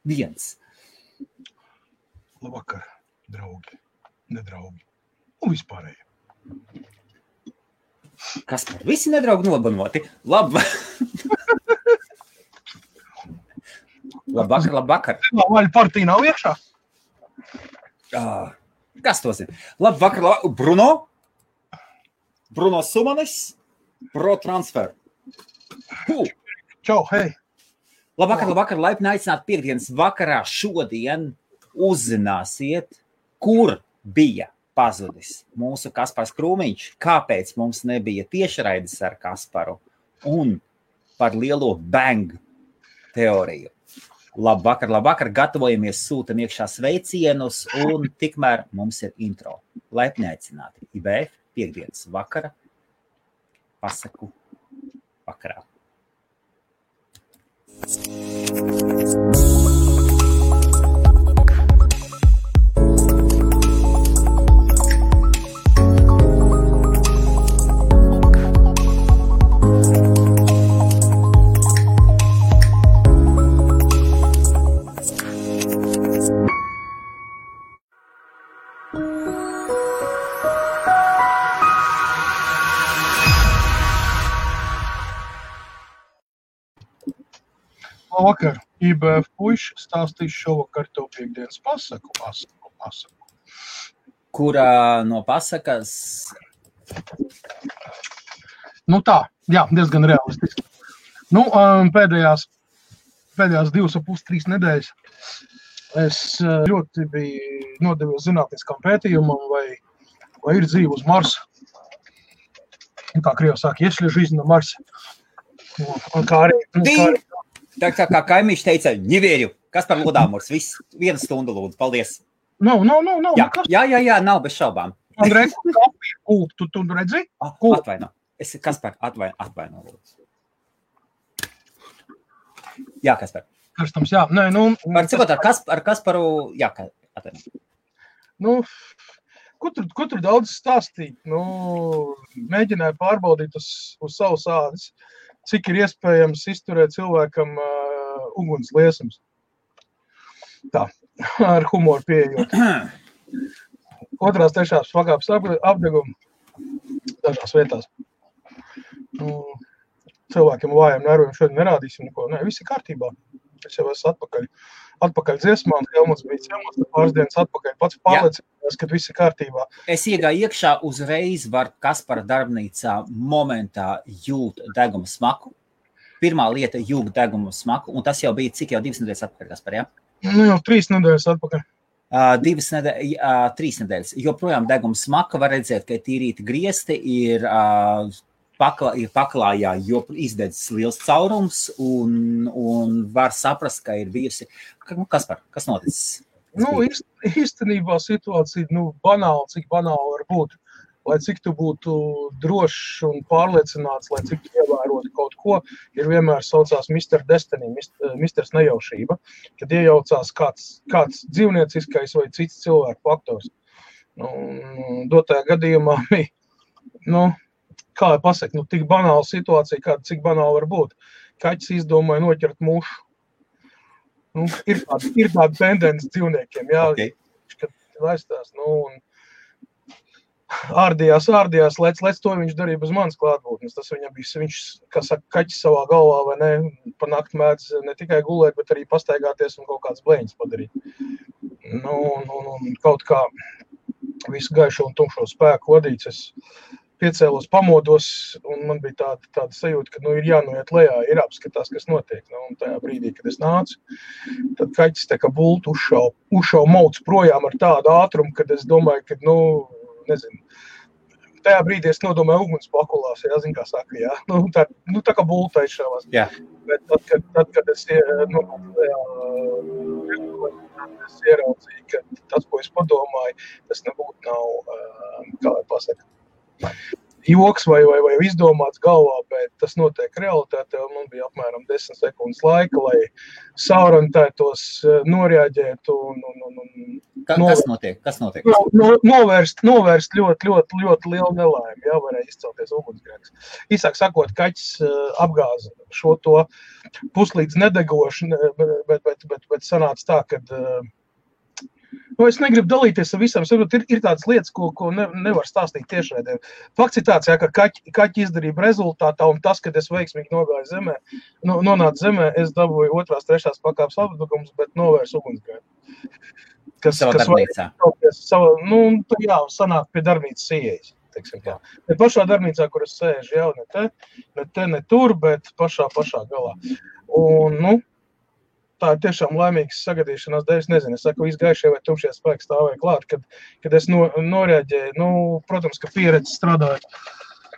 Viens. Labvakar, draugi, nedraugi un vispārēji. Kas par visi nedraugi nobanoti? Labvakar. Vaļa partija nav iekšā? Kas to zina? Labvakar, Bruno Sumanis, Pro Transfer. Čau, hei. Labvakar, laipni aicināt piekdienas vakarā šodien uzzināsiet, kur bija pazudis mūsu Kaspars Krūmiņš, kāpēc mums nebija tiešraides ar Kasparu un par lielo bang teoriju. Labvakar, gatavojamies, sūtam iekšā sveicienus un tikmēr mums ir intro. Laipni aicināti IBF piekdienas vakara pasaku vakarā. Labvakar, IBF puiši stāstīs šovakar tev piekdienas pasaku. Kurā no pasakas? Nu tā, jā, diezgan realistiski. Nu, pēdējās 2,5-3 nedēļas es ļoti biju nodevies zinātniskam pētījumam, vai ir dzīve uz Marsa. Un kā Krievi saka, если жизнь на Марсе. Un kā arī Tā kā kaimiņš teica, nevēru. Kaspar Lodāmurs, viss 1 stundu lūdzu, paldies. Nav. Jā, nav bez šaubām. Andrej, kafiju kūp, tu redzi? Atvaino. Kaspar, atvaino lūdzu. Jā, Kaspar. Karstams, jā. Nē, Var cikot ar Kasparu, jā, atvaino. Nu, ko tur daudz stāstīt? Nu, mēģināju pārbaudīt uz savus ādas, cik ir iespējams izturēt cilvēkam uguns liesums. Tā, ar humoru pieejot. 2. 3. pakāpes apdegumu dažās vietās. Nu, cilvēkiem vājiem nerviem šodien nerādīsim neko. Nē, viss ir kārtībā. Es jau esmu atpakaļ dziesmā, un Helmuts bija ciemos, pāris dienas atpakaļ. Pats pārliecinājās, ka viss ir kārtībā. Es iegāju iekšā uzreiz var Kaspara darbnīcā momentā jūt deguma smaku. Pirmā lieta jūt deguma smaku, un tas jau bija cik jau 2 nedēļas atpakaļ, Kaspar, jā? Nu, jau 3 nedēļas atpakaļ. 3 nedēļas. Joprojām deguma smaka var redzēt, ka tīrīti griesti ir paklājā, jo izdedzis liels caurums un var saprast, ka ir bijusi. Kaspar, kas noticis? Nu, īstenībā situācija, banāla, cik banāla var būt. Lai cik tu būtu drošs un pārliecināts, lai cik tu ievērotu kaut ko, ir vienmēr saucās Mr. Destiny, Mr. Nejaušība, kad iejaucās kāds dzīvnieciskais vai cits cilvēku faktors. Dotajā gadījumā bija, kā lai pasaka, tik banāla situācija, cik banāla var būt. Kaķis izdomāja noķert mušu. Ir tāda tendence dzīvniekiem, jā, okay. Kad laistās, un ārdījās, lec to viņš darīja bez manas klātbūtnes. Tas viņam bija, viņš, kā saka, kaķis savā galvā, vai ne, pa nakti mēdz ne tikai gulēt, bet arī pastaigāties un kaut kāds blēņas padarīt. Kaut kā visu gaišo un tumšo spēku vadīts, es piecēlos, pamodos, un man bija tāda sajūta, ka ir jānoiet lejā, ir apskatās, kas notiek. Un tajā brīdī, kad es nācu, tad kaķis tā kā bultu uzšau mauc projām ar tādu ātrumu, kad es domāju, ka, nezinu, tajā brīdī es nodomāju uguns pakulās, jā, zin kā saka, jā. Tā kā bulta izšāvās. Jā. Bet tad, kad es ieraudzīju, ka tas, ko es padomāju, tas nebūtu nav, kā lai pasaka, joks vai izdomāts galvā, bet tas notiek realitātē, un man bija apmēram 10 sekundes laika, lai saorientētos, noreaģētu un Kas notiek? Novērst ļoti lielu nelaimi, jā, varēja izcelties ugunsgrēks. Īsāk sakot, kaķis apgāza šo to puslīdz nedegošu, bet sanāca tā, kad es negribu dalīties ar visam, ir tādas lietas, ko nevar stāstīt tiešraidē. Fakts ir tāds, jā, ka kaķi izdarība rezultātā, un tas, kad es veiksmīgi nogāju zemē, nonācu zemē, es dabūju 2., 3. pakāpes apdugums, bet novērsu ugunsgrēku. Savā darbnīcā. Jā, sanāk pie darbnīcas ieejas, teiksim tā. Ne pašā darbnīcā, kur es sēžu, jau ne tur, bet pašā galā. Un, tā ir tiešām laimīgas sagadīšanās dēļ. Es nezinu, es saku, izgaišie vai tumšie spēki stāvēja klāt, kad es noreaģēju. Protams, ka pieredze strādājot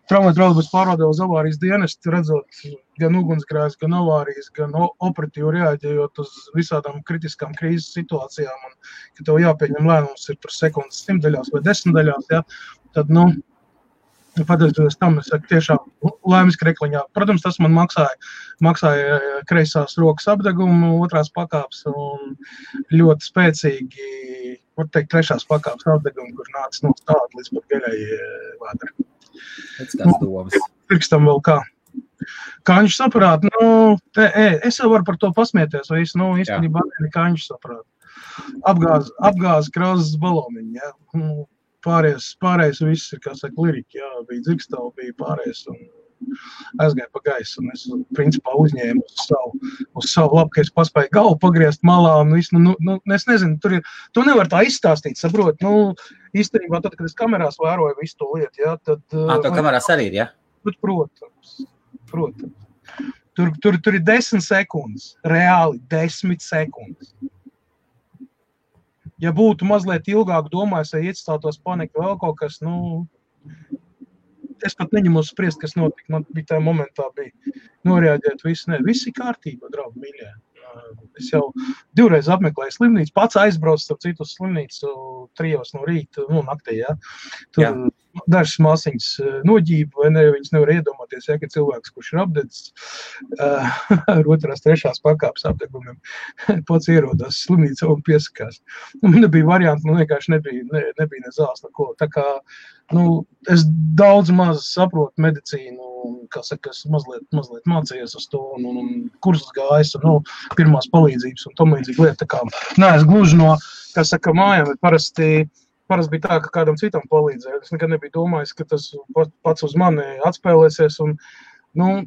traumatoloģijas pārvaldē uz avārijas dienestu, redzot gan ugunsgrēkus, gan avārijas, gan operatīvi reaģējot uz visādām kritiskām krīzes situācijām, un, ka tev jāpieņem lēmums ir tur sekundes 100 vai 10 daļās, ja, tad, pateicoties tam, es saku, tiešām laimes krekliņā. Protams, tas man maksāja kreisās rokas apdegumu, 2. pakāpes un ļoti spēcīgi, var teikt, 3. pakāpes apdegumu, kur nāca no stāda līdz pat gaļai vēdra. Pēc kāds domas. Pirkstam vēl kā. Kāņš saprāt, es jau varu par to pasmieties, vai īstenībā nekāņš saprāt. Apgāz krāzes baloniņu, jā. Pārējais viss ir, kā saka, lirika, jā, bija dzirkstava, bija pārējais un aizgāja pa gaisu, un es, principā, uzņēmu uz savu labu, ka es paspēju galvu pagriezt malā, un visu, es nezinu, tu nevar tā izstāstīt, saprot, īstenībā tad, kad es kamerās vēroju visu to lietu, jā, tad... To kamerās arī ir, jā? Bet, protams. Tur ir 10 sekundes, reāli 10 sekundes. Ja būtu mazliet ilgāk domājis, ja iestātos panika vēl kaut kas, es pat neņemos spriest, kas notika. Man bija tajā momentā noreaģēt visu. Viss ir kārtībā, draugi mīļie. Es jau 2 reizes apmeklēju slimnīcu, pats aizbraucu starp citu uz slimnīcu 3 no rīta, naktī, jā. Tur dažas māsiņas noģība, vai ne, viņas nevar iedomāties, ja, ka cilvēks, kurš ir apdedzis ar 2., 3. pakāpes apdegumiem, pats ierodās slimnīcā un piesakās. Man nebija varianti, man vienkārši nebija ne zāles neko. Tā kā, es daudz maz saprotu medicīnu, kā saka, es mazliet mācījies uz to, un kursus gājis, un pirmās palīdzības, un tomlīdzīgi lieta. Tā kā, es gluži no, kā saka, mājām, bet parasti bija tā, ka kādam citam palīdzēja. Es nekad nebiju domājis, ka tas pats uz mani atspēlēsies, un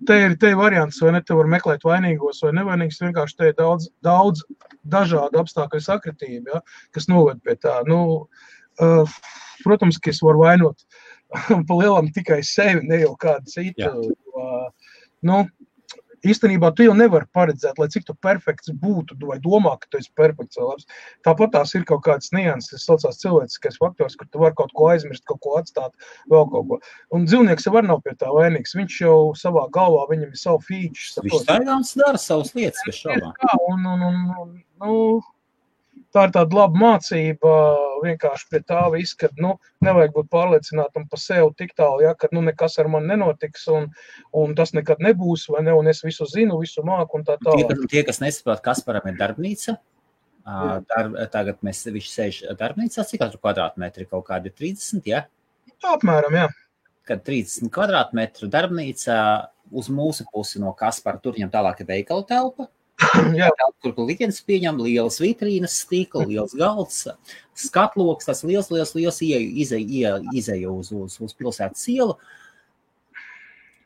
te ir variants, vai ne, te var meklēt vainīgos vai nevainīgus, vienkārši te ir daudz dažādu apstākļu sakritību, ja, kas noved pie tā. Protams, ka es varu vainot pa lielam tikai sevi, ne jau kādu citu. Īstenībā tu jau nevari paredzēt, lai cik tu perfekts būtu, vai domā, ka tu esi perfekts vai labs. Tāpat tās ir kaut kādas nianses, tas saucās cilvēciskais faktors, kur tu vari kaut ko aizmirst, kaut ko atstāt, vēl kaut ko. Un dzīvnieks jau var nav pie tā vainīgs, viņš jau savā galvā, viņam ir savu feature. Viņš taigāns dara savas lietas, bez šaubām. Tā ir tāda laba mācība, vienkārši pie tā viss, kad, nevajag būt pārliecinātam pa sevi tik tālu, ja, kad, nekas ar mani nenotiks, un tas nekad nebūs, vai ne, un es visu zinu, visu māku, un tā tālāk. Tie, kas nesaprot, Kasparam ir darbnīca, tagad viņš sēž darbnīcā, cik katru kvadrātmetri, kaut kādi 30, ja? Apmēram, jā. Kad 30 kvadrātmetru darbnīcā uz mūsu pusi no Kaspara, tur viņam tālāk ir veikala telpa. Kur liktenis pieņem lielas vitrīnas, stikla, liels galds, skatloks, tas liels izeja uz pilsētas ielu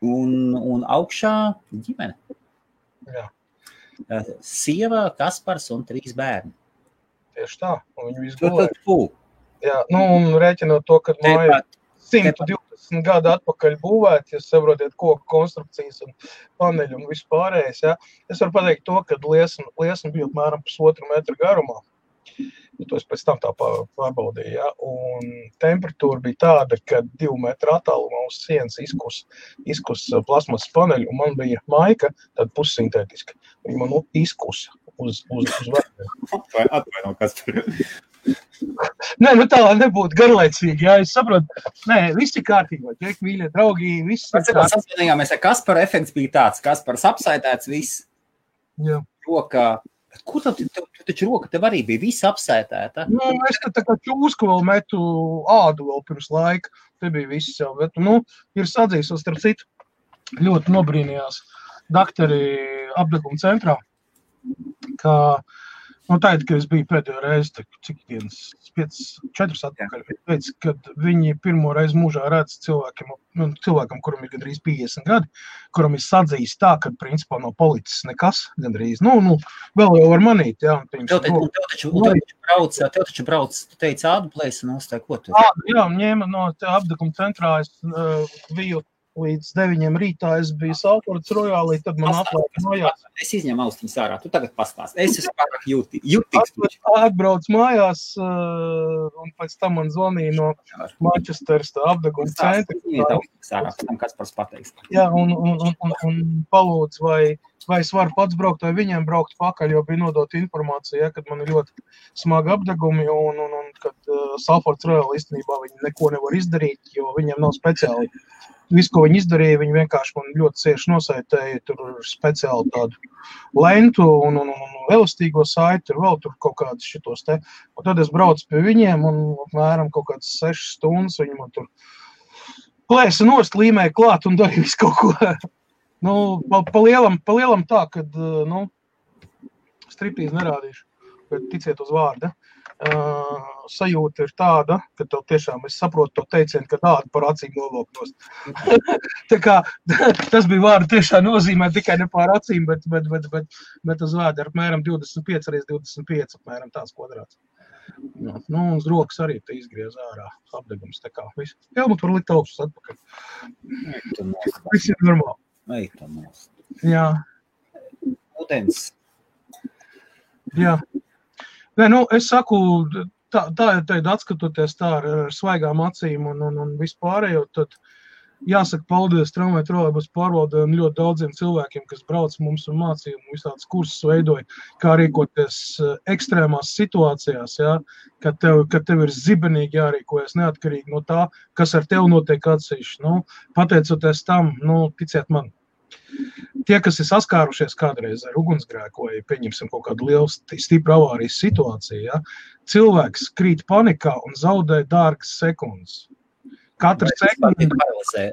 un augšā ģimene. Jā. Sieva, Kaspars un 3 bērni. Tieši tā, un viņi visu gulēja. Jā, un rēķinot to, kad māja 120 gadu atpakaļ būvēt, jūs saprotiet, koku konstrukcijas un paneļu un visu pārējais, ja. Es varu pateikt to, ka liesma bija apmēram 1,5 metru garumā. To es pēc tam tā pārbaudīju, ja. Un temperatūra bija tāda, ka 2 metru attālumā uz sienas izkus plasmas paneļu, un man bija maika, tāda pussintētiska. Viņa man izkusa uz vērtiem. Atvaino, Kaspar. Nē, tā lai nebūtu garlaicīgi, jā, es saprotu, viss ir kārtībā, ķek, mīļie, draugi, viss ir kārtībā. Sasvienījāmies, Kaspara efekts bija tāds, Kaspars apsaitēts viss, jā. Rokā, Kur tev taču roka tev arī bija visa apsētēta? Nu, es te tā kā čūsku vēl metu ādu vēl pirms laika. Te bija viss jau, bet, ir sadzīsos, starp citu, ļoti nobrīnījās daktari apdeguma centrā, ka, tātad, kad es biju pēdējo reizi, cik dienas, 4 atpakaļ, teica, kad viņi pirmo reizi mūžā redz cilvēkam, kuram ir gandrīz 50 gadi, kuram ir sadzījis tā, ka, principā, no policis nekas gandrīz, vēl jau var manīt, jā. Tev taču brauc, tu teici ādu plēsanos, tā ko tu? Jā, ņēma no apdeguma centrā, es biju līdz 9 rītā, es biju Salfords Royālī, tad man atlaika mājās. Es izņemu austiņas ārā, tu tagad pastāst. Es esmu pārāk jūtīgs. Atbrauc mājās, un pēc tam man zvanīja no Manchesteras apdeguma centra. Tam Kaspars pateiks. Jā, un palūdz, vai es varu pats braukt, vai viņiem braukt pakaļ, jo bija nodot informācija, kad man ir ļoti smagi apdegumi, un kad Salfords Royālī īstenībā viņi neko nevar izdarīt, jo viņiem nav speciāli. Visu, ko viņi izdarīja, viņi vienkārši man ļoti cieši nosaitēja, tur speciāli tādu lentu un elastīgo saiti, vēl tur kaut kādas šitos te. Un tad es braucu pie viņiem un apmēram kaut kādas 6 stundas, viņi man tur plēsa nost, līmēja klāt un darīja visu kaut ko. Pa lielam tā, kad, striptīzi nerādīšu, bet ticiet uz vārda. Sajūta ir tāda, ka tev tiešām, es saprotu to teicienu, ka tāda par acīm novoknos. Tā kā tas bija vārdu tiešām nozīmē tikai ne pār acīm, bet uz vārdu ar apmēram 25 x 25, apmēram tāds kvadrāts. Uz rokas arī te izgriez ārā apdegums, tā kā viss. Helmut var likt augstus atpakaļ. Viss ir normāli. Jā. Ūdens. Jā. Nē, es saku, tā atskatoties tā ar svaigām acīm un vispārējo, tad jāsaka paldies tramvaju trolejbusu pārvaldē un ļoti daudziem cilvēkiem, kas brauc mums un mācīja un visādas kursus veidoja, kā rīkoties ekstrēmās situācijās, ja, kad tev ir zibenīgi jārīkojas neatkarīgi no tā, kas ar tevi notiek atsevišķi. Pateicoties tam, ticiet man, tie, kas ir saskārušies kādreiz ar ugunsgrēku vai pieņemsim kaut kādu lielu stipru avārijas situāciju, ja, cilvēks krīt panikā un zaudē dārgas sekundes. Katra sekunde paralizē.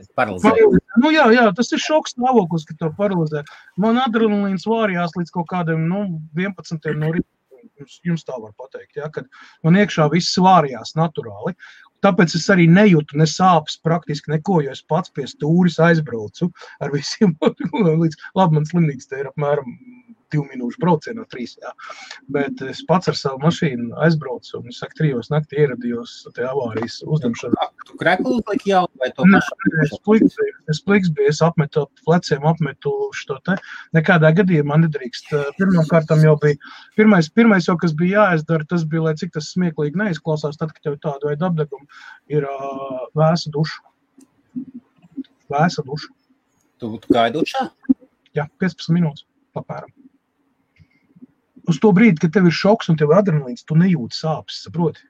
Jā, tas ir šoks stāvoklis, ka to paralizē. Man adrenalīns vārījās līdz kaut kādiem 11 no rīta, jums tā var pateikt, ja, kad man iekšā viss vārījās naturāli. Tāpēc es arī nejūtu ne sāpes praktiski neko, jo es pats pie stūris aizbraucu ar visiem līdz, labi, man slimnīca te ir apmēram 2 minūšu braucienā 3, jā. Bet es pats ar savu mašīnu aizbraucu un, es saku, 3 naktī ieradījos te avārijas uzdemšanā. Tu kreklu uzliki jau vai to mašīnu? Es pliks biju, es apmetu pleciem, apmetu šo te. Nekādā gadījumā nedrīkst. Pirmkārtam jau bija, pirmais jau, kas bija jāizdara, tas bija, lai cik tas smieklīgi neizklausās, tad, kad tev tādu veidu apdegumu, ir vēsa duša. Vēsa duša. Tu gāji dušā? Jā, 15 minūtes apmēram. Uz to brīdi, kad tev ir šoks un tev ir adrenalīns, tu nejūti sāpes, saproti?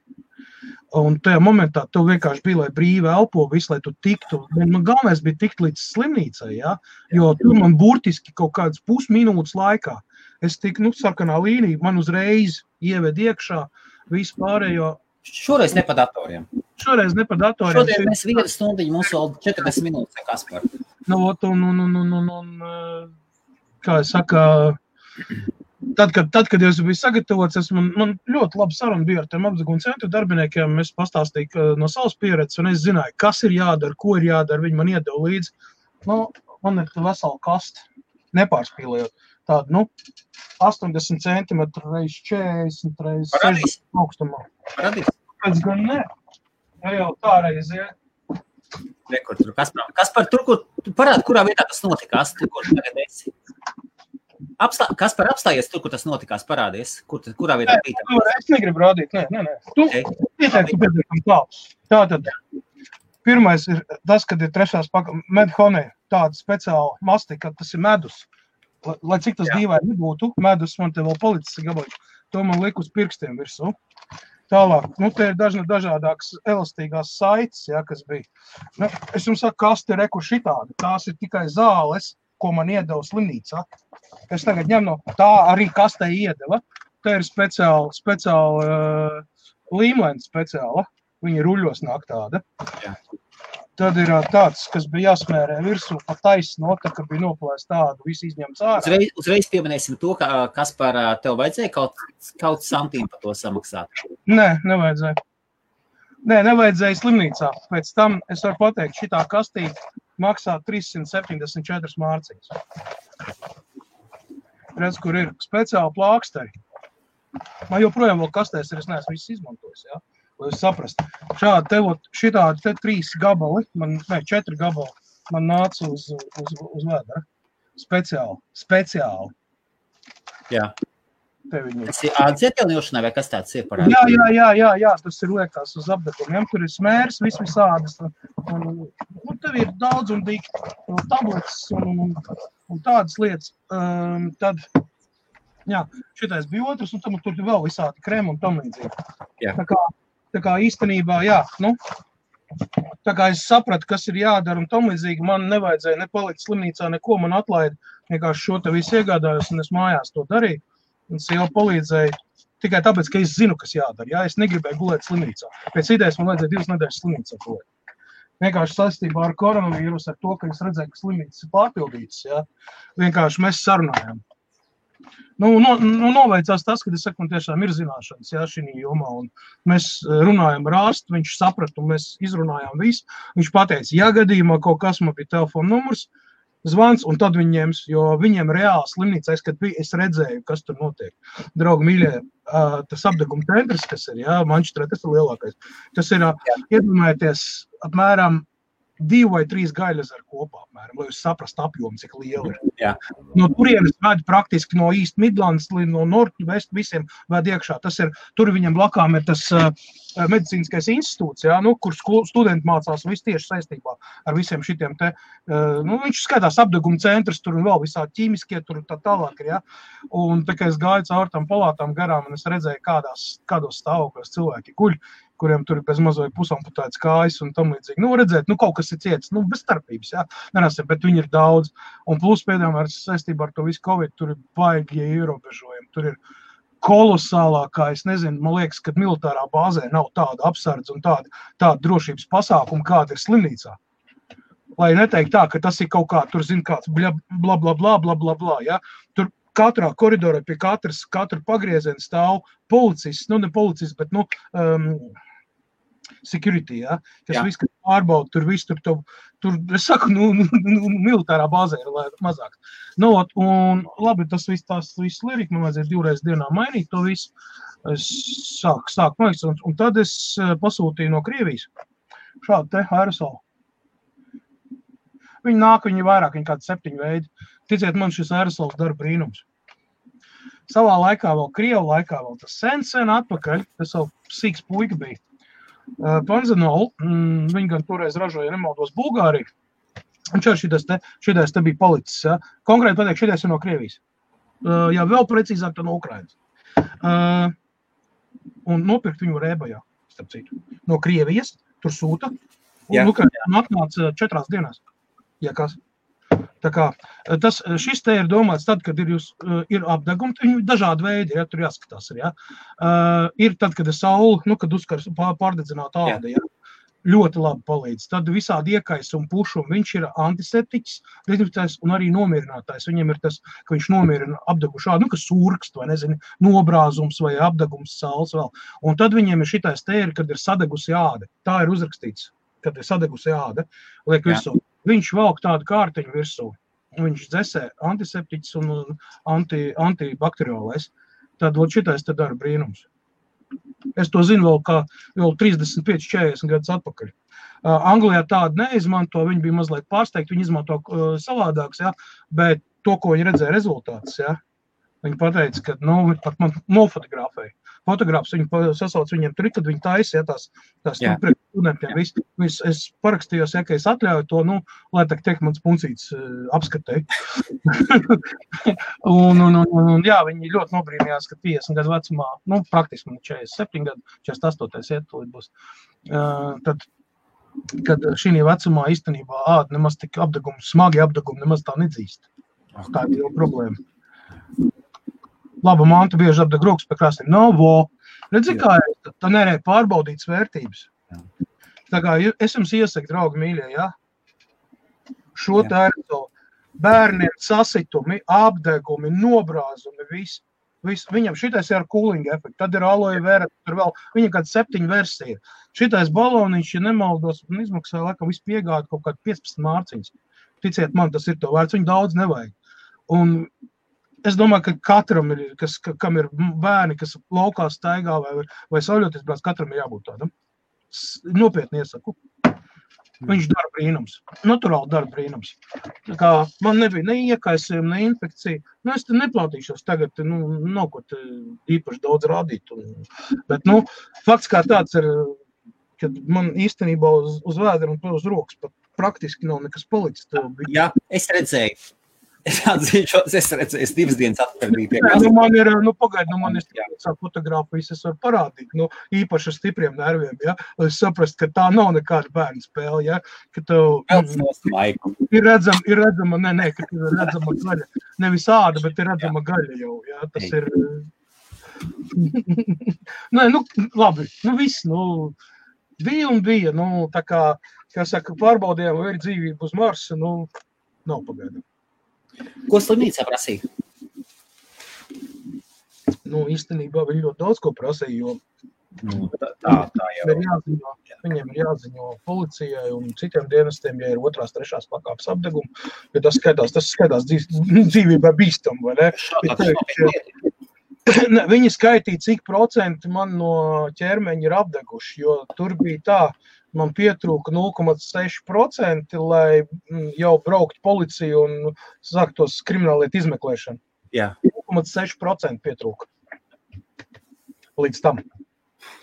Un tajā momentā tev vienkārši bija, lai brīvi elpo visu, lai tu tiktu. Man galvenais bija tikt līdz slimnīcai, ja? Jo tur man burtiski kaut kādas pusminūtes laikā. Es tiku, sarkanā līnija, man uzreiz ieved iekšā visu pārējo. Šoreiz ne pa datoriem. Šodien mēs 1 stundiņu, mums vēl 40 minūtes, Kaspar. Kā es saku, tad, kad es biju sagatavots, man ļoti labi saruna bija ar tiem apdeguma centru darbiniekiem. Es pastāstīju no savas pieredzes, un es zināju, kas ir jādara, ko ir jādara. Viņi man iedeva līdzi. Man ir vesela kaste, nepārspīlējot. Tādu, 80 cm reiz 40 reiz 60 augstumā. Parādīs? Pēc gan ne. Jau tā reiz, ja. Rekur, tur Kaspar, tur, kur parādi, kurā vietā tas notikās, tur, kur tagad esi. Kaspar, apstājies tur, kur tas notikās, parādies, kurā vietā bija. Es negribu rādīt, nē. Tu pietiekam tā. Tātad, pirmais ir tas, kad ir trešās medhonē, tāda speciāla mastika, tas ir medus. Lai cik tas dīvaini nebūtu, medus man te vēl palicis gabaliņš, to man liek uz pirkstiem virsū. Tālāk, te ir dažādākas elastīgās saites, ja, kas bija. Es jums saku, kas te reku šitādi, tās ir tikai zāles, ko man iedeva slimnīcā. Es tagad ņem no tā arī kastē iedeva. Tā ir speciāla līmlēna speciāla. Viņa ruļos nāk tāda. Jā. Tad ir tāds, kas bija jāsmērē virsū pa taisno, tā, ka bija noplēst tādu, visu izņemts ārā. Uzreiz pieminēsim to, kas par tev vajadzēja kaut santīm par to samaksāt. Nē, nevajadzēja. Nevajadzēja slimnīcā. Pēc tam es varu pateikt, šitā kastīte maksā 374 mārciņas. Redz, kur ir speciāli plāksteri. Man joprojām vēl kastēs ir, es neesmu viss izmantojis, jā. Lai jūs saprast. Šitādi te 3 gabali, 4 gabali, man nāca uz vēdera. Speciāli. Jā. Te viņi ir. Tas ir ādzietēlņošanai vai kas tāds ir parādi? Jā, tas ir liekās uz apdegumiem. Tur ir smērs, visādas. Un tev ir daudz un dikti tabletes un tādas lietas. Tad, jā, šitais bija otrs, un tur ir vēl visādi krēmi un tam līdzīgi. Jā. Tā kā īstenībā, jā, tā kā es sapratu, kas ir jādara un tam līdzīgi, man nevajadzēja nepalikt slimnīcā, neko man atlaida, vienkārši šo te visu iegādājos un es mājās to darīju. Un sieva palīdzēja tikai tāpēc, ka es zinu, kas jādara, jā, es negribēju gulēt slimnīcā. Pēc idejas man vajadzēja 2 nedēļas slimnīcā gulēt. Vienkārši saistībā ar koronavīrus, ar to, ka es redzēju, ka slimnīcas ir pārpildītas, jā, vienkārši mēs sarunājām. Noveicās tas, kad es saku, man tiešām ir zināšanas, jā, šī jomā, un mēs runājam ar ārstu, viņš saprata, un mēs izrunājām visu. Viņš pateica, ja gadījumā kaut kas man bija telefona numurs, zvans, un tad viņi ņems, jo viņiem reāli slimnīcā, kad bija, es redzēju, kas tur notiek. Draugi mīļie, tas apdeguma centrs, kas ir, jā, Mančestrē, tas ir lielākais. Tas ir, iedomājieties, apmēram 2 vai 3 gaļezeri kopā, apmēram, lai jūs saprastu apjomu, cik liela ir. Jā. No turienes ved praktiski no East Midlands līdz no North West visiem ved iekšā. Tas ir, tur viņam blakām ir tas medicīniskais institūts, jā, kur studenti mācās visu tieši saistībā ar visiem šitiem te, viņš skatās apdeguma centrs, tur un vēl visādi ķīmiskie, tur tā tālāk ir, jā. Un tā kā es gāju caur tām palātām garām, un es redzēju, kādos stāvokļos cilvēki guļ, kuriem tur ir bez mazoja pusamputētas kājas un tam līdzīgi. Redzēt, kaut kas ir ciets, bez starpības, jā, nerasiem, bet viņi ir daudz. Un plus pēdējām ar saistībā ar to visu Covid, tur ir baigie ierobežojumi, tur ir kolosālākā, es nezinu, man liekas, ka militārā bāzē nav tāda apsardze un tāda drošības pasākuma, kāda ir slimnīcā. Lai neteikt tā, ka tas ir kaut kā, tur zin kāds bla, jā, tur katrā koridorā pie katra pagrieziena stāv policists, ne policists, bet, security, ja, kas viss, kas pārbauda, tur viss, tur, es saku, militārā bāzē ir mazāk. Un labi, tas viss lirika, man vajadzēja 2 reizes dienā mainīt to visu. Es sāku maiks, un tad es pasūtīju no Krievijas šādu te aerosolu. Viņi nāk, viņi vairāk, viņi kādi 7 veidi. Ticiet man, šis aerosols dara brīnums. Savā laikā vēl, Krievu laikā vēl tas sen atpakaļ, tas vēl sīks puika bija. Panzenolu, viņi gan toreiz ražoja, nemaldos, Bulgāriju. Un šitais te bija palicis, ja. Konkrēti pateikt, šitais ir no Krievijas. Jā, vēl precīzāk tā no Ukrainas. Un nopirkt viņu Rēbajā, starp citu. No Krievijas, tur sūta. Un Ukrainā atnāca 4 dienās. Ja kas. Tā kā šis te ir domāts tad, kad ir apdegumi, viņi dažādi veidi, ja, tur jāskatās ir, ja. Ir tad, kad ir saule, kad uzkars pārdedzināt āda, ja. Ļoti labi palīdz. Tad visādi iekais un pušumi, viņš ir antiseptiķis, dezinfekcijas un arī nomierinātājs. Viņam ir tas, ka viņš nomierina apdegušu ādu, kas surkst vai, nezinu, nobrāzums vai apdegums sāls vēl. Un tad viņiem ir šitais te ir, kad ir sadegusi āda. Tā ir uzrakstīts, kad ir sadegusi āda, liek virsū. Viņš valk tādu kārtiņu virsū. Viņš dzesē antiseptiķis un antibakteriolais. Tad šitais te dara brīnums. Es to zinu vēl 35-40 gadus atpakaļ. Anglijā tādu neizmanto, viņi bija mazliet pārsteigti, viņi izmanto savādāks, ja, bet to, ko viņi redzēja rezultātus, ja, viņi pateica, ka, pat man nofotografēja. Fotogrāfs viņu sasauc viņiem tur, kad viņi taisa, ja, tās priekš studentiem visu. Es parakstījos, ja, ka es atļauju to, lai tiek mans puncīts apskatēja. un jā, viņi ļoti nobrīnījās, ka 50 gadu vecumā, praktiski man 47 gadu, 48 iet, būs. Tad kad šī vecumā īstenībā āda nemaz tik smagi apdegumi nemaz tā nedzīst. Tā ir jau problēma. Laba manta bieži apdeg rokas pie krastiem. Redzi, kā ir, tā nerē pārbaudītas vērtības. Tā kā es jums iesaku, draugi mīļie, ja? Šo tā ir bērniem sasitumi, apdegumi, nobrāzumi, viss. Viņam šitais ir ar cooling efektu, tad ir aloe vera, tur vēl, viņam kāds 7 versija. Šitais baloniņš, ja nemaldos, un izmaksāja, laikam, visu piegādu kaut kādu 15 mārciņas. Ticiet man, tas ir to vērts, viņu daudz nevajag. Un es domāju, ka katram ir, kam ir bērni, kas laukā staigā vai sauļoties brāc, katram ir jābūt tādam. Nopietni iesaku. Viņš dara brīnums. Naturāli dara brīnums. Tā kā man nebija ne iekaisījuma, ne infekcija. Es te neplātīšos tagad, nav ko te īpaši daudz rādīt. Bet, fakts kā tāds ir, kad man īstenībā uz vēdera un uz rokas pat praktiski nav nekas palicis. Jā, es redzēju. Es atzīšos, es redzēju, 2 dienas atpakaļ pie man ir, man ir fotogrāfijas, es varu parādīt, īpaši ar stipriem nerviem, ja, lai es saprast, ka tā nav nekāda bērnu spēle, ja, ka tev ir redzama, ka ir redzama gaļa, nevis āda, bet ir redzama gaļa jau, ja, tas ir, labi, viss, bija, tā kā saka, pārbaudījām, vai ir dzīvība uz Marsa, nav pagaidām. Ko slimnīcā prasīja? Īstenībā viņi ļoti daudz ko prasīja, jo tā jau. Viņiem ir jāziņo policijai un citiem dienestiem, ja ir 2., 3. pakāpes apdegumi, jo tas skaitās dzīvībai bīstam, vai ne? Viņi skaitīja, cik procenti man no ķermeņa ir apdeguši, jo tur bija tā, man pietrūka 0,6%, lai jau braukt policiju un sāktos krimināllietu izmeklēšanu. Jā. 0,6% pietrūka līdz tam.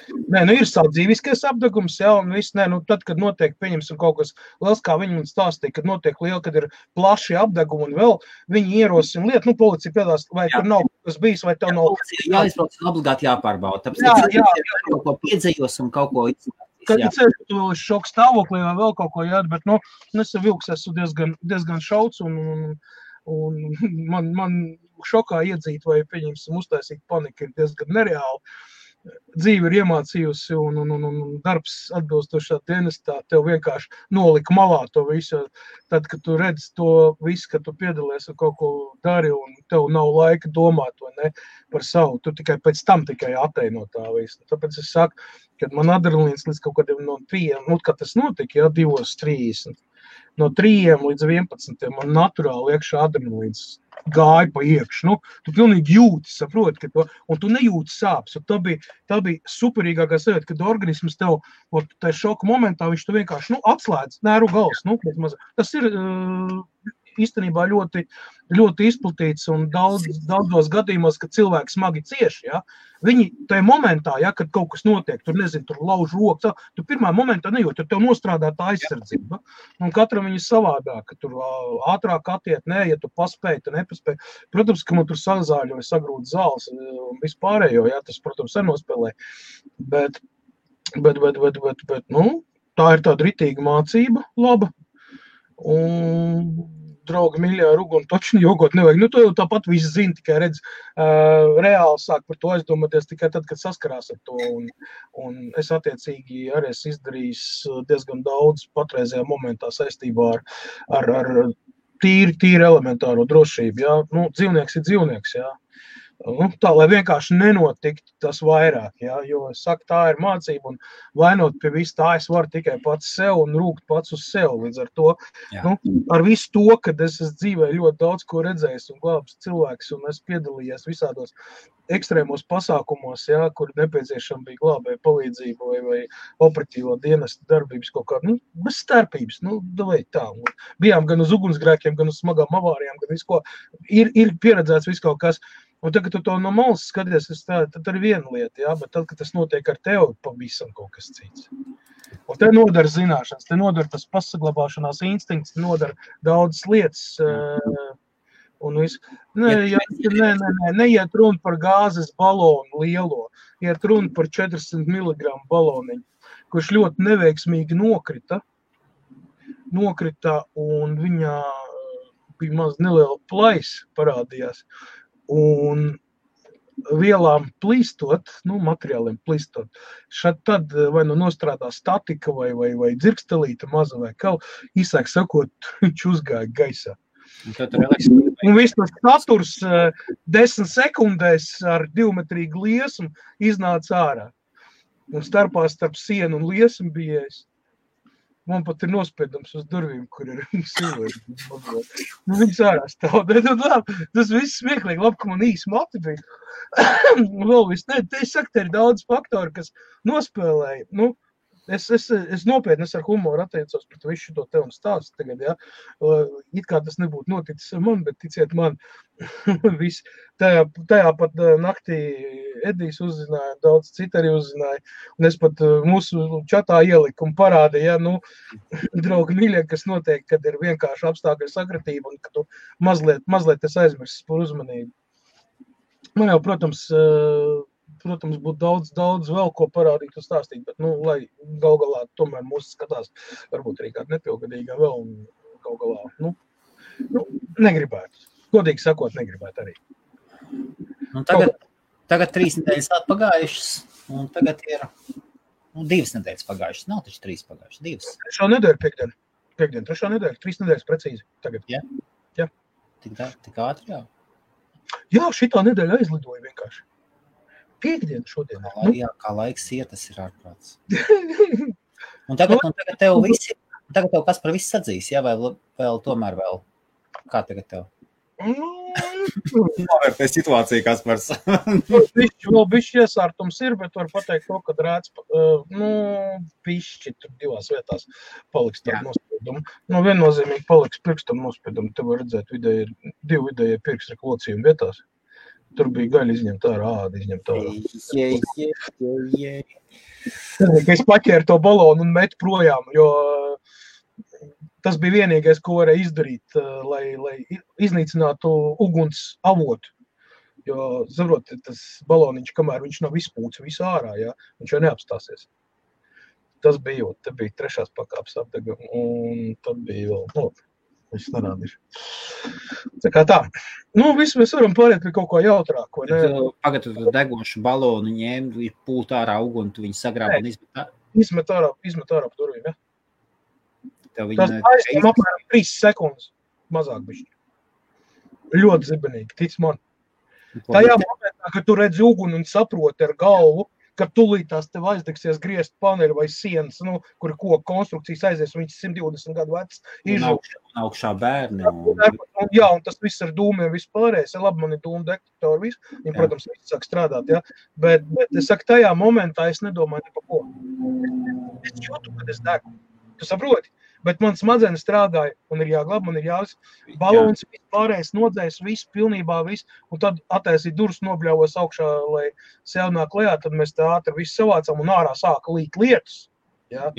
Ir savu dzīviskais apdegums, jā, un viss, tad, kad notiek, pieņemsim kaut kas liels, kā viņi man stāstīja, kad notiek liela, kad ir plaši apdegumi un vēl, viņi ierosina lietu, policija piedās, vai tur nav kas bijis, vai tev nav. Jā, un obligāti jāpārbauda, tāpēc kaut ko piedzējos un kaut ko izsaka. Kad ir ceļš, tu vēl šoka stāvoklī vai vēl kaut ko jādara, bet, es vilks esmu diezgan šauts un man šokā iedzīt vai, pieņemsim, uztaisīt paniku ir diezgan nereāli. Dzīve ir iemācījusi un darbs atbilstošā dienestā tev vienkārši nolika malā to visu. Tad, kad tu redzi to visu, ka tu piedalies un kaut ko dari un tev nav laika domāt vai ne, par savu, tu tikai pēc tam atteino tā visu. Tāpēc es saku, kad man adrenalīns līdz kaut kādiem no 3, kad tas notika, 2:30, no 3 līdz 11, man naturāli iekšā adrenalīns gāja pa iekšu. Tu pilnīgi jūti, saproti, un tu nejūti sāpes. Tā bija superīgākā sajūta, kad organisms tev, tajā šoka momentā, viņš tu vienkārši, atslēdz nervu gals. Tas ir īstenībā ļoti, ļoti izplatīts un daudzos gadījumos, kad cilvēki smagi cieši, ja, viņi tajā momentā, ja, kad kaut kas notiek, tur lauž rokas, tu pirmā momentā nejūt, tur tev nostrādā tā aizsardzība. Un katram viņi savādāk, ka tur ātrāk attiet, ja tu paspēji, tu nepaspēji. Protams, ka man tur sazāļoja, sagrūt zāles un vispārējo, ja, tas, protams, nenospēlē. Bet, tā ir tāda ritīga mācība, laba. Un draugi mīļā ruguni točni jogot nevajag. To jau tāpat visi zina, tikai redz, reāli sāk par to aizdomāties tikai tad, kad saskarās ar to. Un es attiecīgi arī esmu izdarījis diezgan daudz patreizajā momentā saistībā ar tīri elementāro drošību. Jā. Dzīvnieks ir dzīvnieks, jā. Tā, lai vienkārši nenotiktu tas vairāk, jā, jo es saku, tā ir mācība un vainot pie visu tā es varu tikai pats sev un rūgt pats uz sev. Līdz ar to, ar visu to, kad es esmu dzīvē ļoti daudz ko redzējis un glābs cilvēks un es piedalījies visādos ekstrēmos pasākumos, jā, kur nepieciešama bija glābēja palīdzība vai operatīvā dienesta darbības kaut kāda, bez starpības, davai tā. Bijām gan uz ugunsgrēkiem, gan uz smagām avārijām, gan visko, ir pieredzēts viss kaut kas. Un tad, kad tu to no malas skaties, tad ir viena lieta, jā, bet tad, kad tas notiek ar tevi, pavisam kaut kas cits. Un te nodara zināšanas, te nodara tas pasaglabāšanās instinkts, te nodara daudzas lietas. Un visu. Neiet runa par gāzes balonu lielo. iet runa par 400 mg baloniņu, kurš ļoti neveiksmīgi nokrita, un viņā bija maz neliela plaisa parādījās, un vielām plīstot, materiāliem plīstot, tad vai nostrādā statika vai dzirkstelīta maza vai kaut, īsāk sakot, viņš uzgāja gaisā. Un viss tas saturs 10 sekundēs ar 2-metrīgu liesmu iznāca ārā. Un starp sienu un liesmu bija es. Man pat ir nospiedams uz durvīm, kur ir cilvēki. Viņas ārā stāv. Tas viss smieklīgi, labi, ka man īsi mati bija. Vēl viss, es saku, te ir daudz faktori, kas nospēlēja. Es nopietni ar humoru attiecos pret visu šo te un stāstu tagad, ja. It kā tas nebūtu noticis ar mani, bet ticiet man, viss. Tajā pat naktī Edijs uzzināja, daudz citi arī uzzināja, un es pat mūsu čatā ieliku un parādīju, ja, draugi mīļie, kas notiek, kad ir vienkārši apstākļu sakratība un ka tu mazliet es aizmirsis par uzmanību. Man jau, protams, būtu daudz vēl ko parādīt un stāstīt, bet, lai gal galā tomēr mūs skatās, varbūt arī kāda nepilngadīgā vēl, un gal galā, negribētu. Godīgi sakot, negribētu arī. Tagad 3 nedēļas atpagājušas, un tagad ir 2 nedēļas pagājušas. Nav taču 3 pagājušas, 2. 3. nedēļa piekdien, 3. nedēļa, 3 nedēļas precīzi tagad. Jā? Jā. Tik ātri, jā? Jā, šitā nedēļa aizlidoja vienkārši. Piekdien šodien. Jā, kā laiks iet, tas ir ārprāts. Un tagad tev visi, tagad tev kas par visu sadzīs, jā, vai vēl tomēr vēl? Kā tagad tev? Novērtē situāciju, Kaspars. Vēl bišķi iesārtums ir, bet var pateikt to, kad rēdz, bišķi tur 2 vietās paliks tādu nospiedumu. Viennozīmīgi paliks pirkstam nospiedumu. Te var redzēt 2 vidējie pirkstreku locījumi vietās. Tur bija gaļa izņemt ārā, āda izņemt ārā. Es paķēru to balonu un metu projām, jo tas bija vienīgais, ko varēja izdarīt, lai iznīcinātu uguns avotu. Jo, saprot, tas baloniņš, kamēr viņš nav izpūts visu ārā, jā, viņš jau neapstāsies. Tas bija, te bija 3. pakāpes apdega, un tad bija vēl, viss nerādīšu. Tā kā tā. Viss mēs varam pāriet pie kaut ko jautrāko, ne? Pagad, tu degošu balonu ņēm, pūt ārā uguni, tu viņu sagrāb un izmet ārā pa durvīm, ja? Tas aizņem apmēram 3 sekundes mazāk bišķi. Ļoti zibenīgi, tic man. Tajā momentā, kad tu redzi uguni un saproti ar galvu, ka tūlītās tev aizdegsies griezt paneļu vai sienas, kur koku konstrukcijas aizies, un viņš 120 gadu vecs. Un augšā bērni. Jā, un tas viss ar dūmiem vispārējais. Labi, man ir dūmu detektori, viss. Viņi, protams, viss sāk strādāt, jā. Bet es saku, tajā momentā es nedomāju ne par ko. Es jūtu, kad es degu. Tu saproti? Bet man smadzenes strādāja, un ir jāglab, man ir balons, vispārējais nodzēs, viss, pilnībā viss, un tad attaisīt durus nobļauvos augšā, lai sev nāk lejā, tad mēs tā ātri visu savācam, un ārā sāka līt lietus. Jā.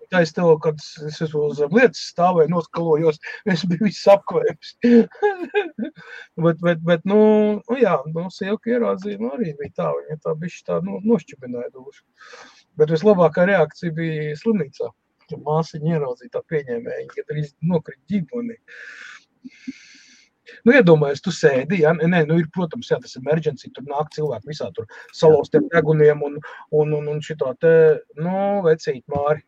Tā es tev, kad es uz lietas stāvēju, noskalojos, es biju viss apkvēps. bet, jā, sievka ierādzīma arī bija tā, viņa tā bišķi tā nošķibināja dušu. Bet vislabākā reakcija bija slimnīcā. Māsiņa ieraudzīja tā pieņēmēja, kad arī nokrit ģiboni. Iedomājies, tu sēdi, ja? Ir, protams, jā, tas emergency, tur nāk cilvēki visā tur salauztiem deguniem un šitā te, vecīt Māri.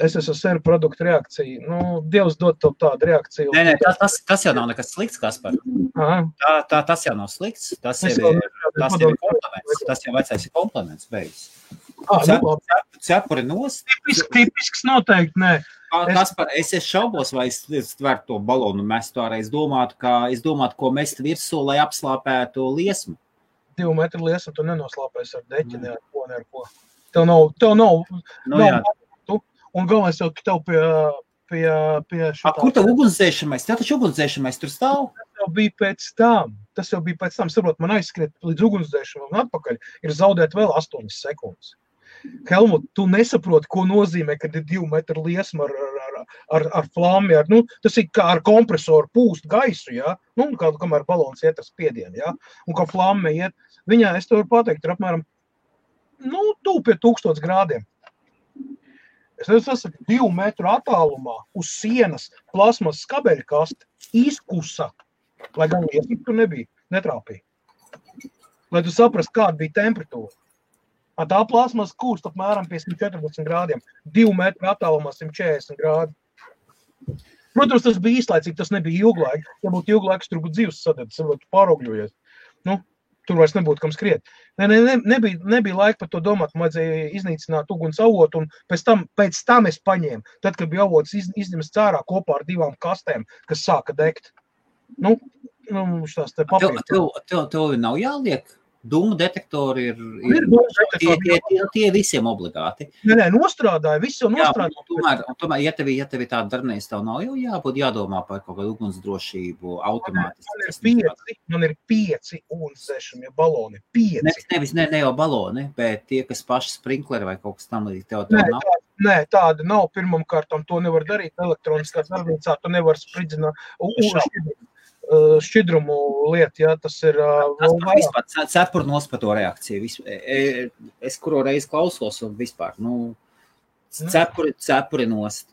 Es esmu seru produktu reakciju. Dievs dod tev tādu reakciju. Nē, tas jau nav nekas slikts, Kaspar. Tas jau nav slikts. Tas jau ir komplements. Tas jau vecais ir komplements beigas. Cepuri nost. Tipisks noteikti, nē. Kaspar, es šaubos, vai es tvertu to balonu mestu ārā. Es domātu, ko mest virsū, lai apslāpētu liesmu. 2 metru liesmu tu nenoslāpēs ar deķi, ne ar ko. Tev nav un galvenais jau tev pie šitā. Kur tev ugunsdzēšamais? Tev taču ugunsdzēšamais tur stāv? Tas jau bija pēc tam. Saprot, man aizskriet līdz ugunsdzēšamam un atpakaļ ir zaudēt vēl 8 sekundes. Helmut, tu nesaproti, ko nozīmē, kad ir 2 metru liesma ar flammi. Tas ir kā ar kompresoru pūst gaisu, ja? Kamēr balons iet ar spiedienu, ja? Un kā flamme iet. Viņā, es tev varu pateikt, ir apmēram tuvu pie 1000 grādiem. Es esmu 2 metru attālumā uz sienas plasmas skabeļa kaste izkusa, lai gan liesmīgi tur nebija, netrāpīja. Lai tu saprast, kāda bija temperatūra. Tā plasmas kūst apmēram pie 114 grādiem, 2 metru attālumā 140 grādi. Protams, tas bija īslaicīgi, tas nebija ilglaiki. Ja būtu ilglaiks, tur būtu dzīves sadētas, varbūt pārogļojies. Tur vairs nebūtu kam skriet. Nebija laika par to domāt, man vajadzēja iznīcināt uguns avotu, un pēc tam es paņēmu. Tad, kad bija avots izņems cārā kopā ar 2 kastēm, kas sāka degt. Šās te papīras. Tev nav jāliek? Dūmu detektori tie visiem obligāti. Nē, nostrādāja, viss jau nostrādāja. Tomēr, ja tev tāda darbnīca, tev nav jau jābūt jādomā par kaut kādu ugunsdrošību automātiski. Man ir 5 ugunsdzēšamie baloni, 5. Ne jau baloni, bet tie, kas paši sprinkleri vai kaut kas tam līdz tev nav. Nē, tāda nav. Pirmam kārtam to nevar darīt elektroniskā darbnīcā, tu nevar spridzināt šķidrumu lietu, ja, tas ir... Cepuri nospa to reakciju. Es kuru reizi klausos un vispār, cepuri nost.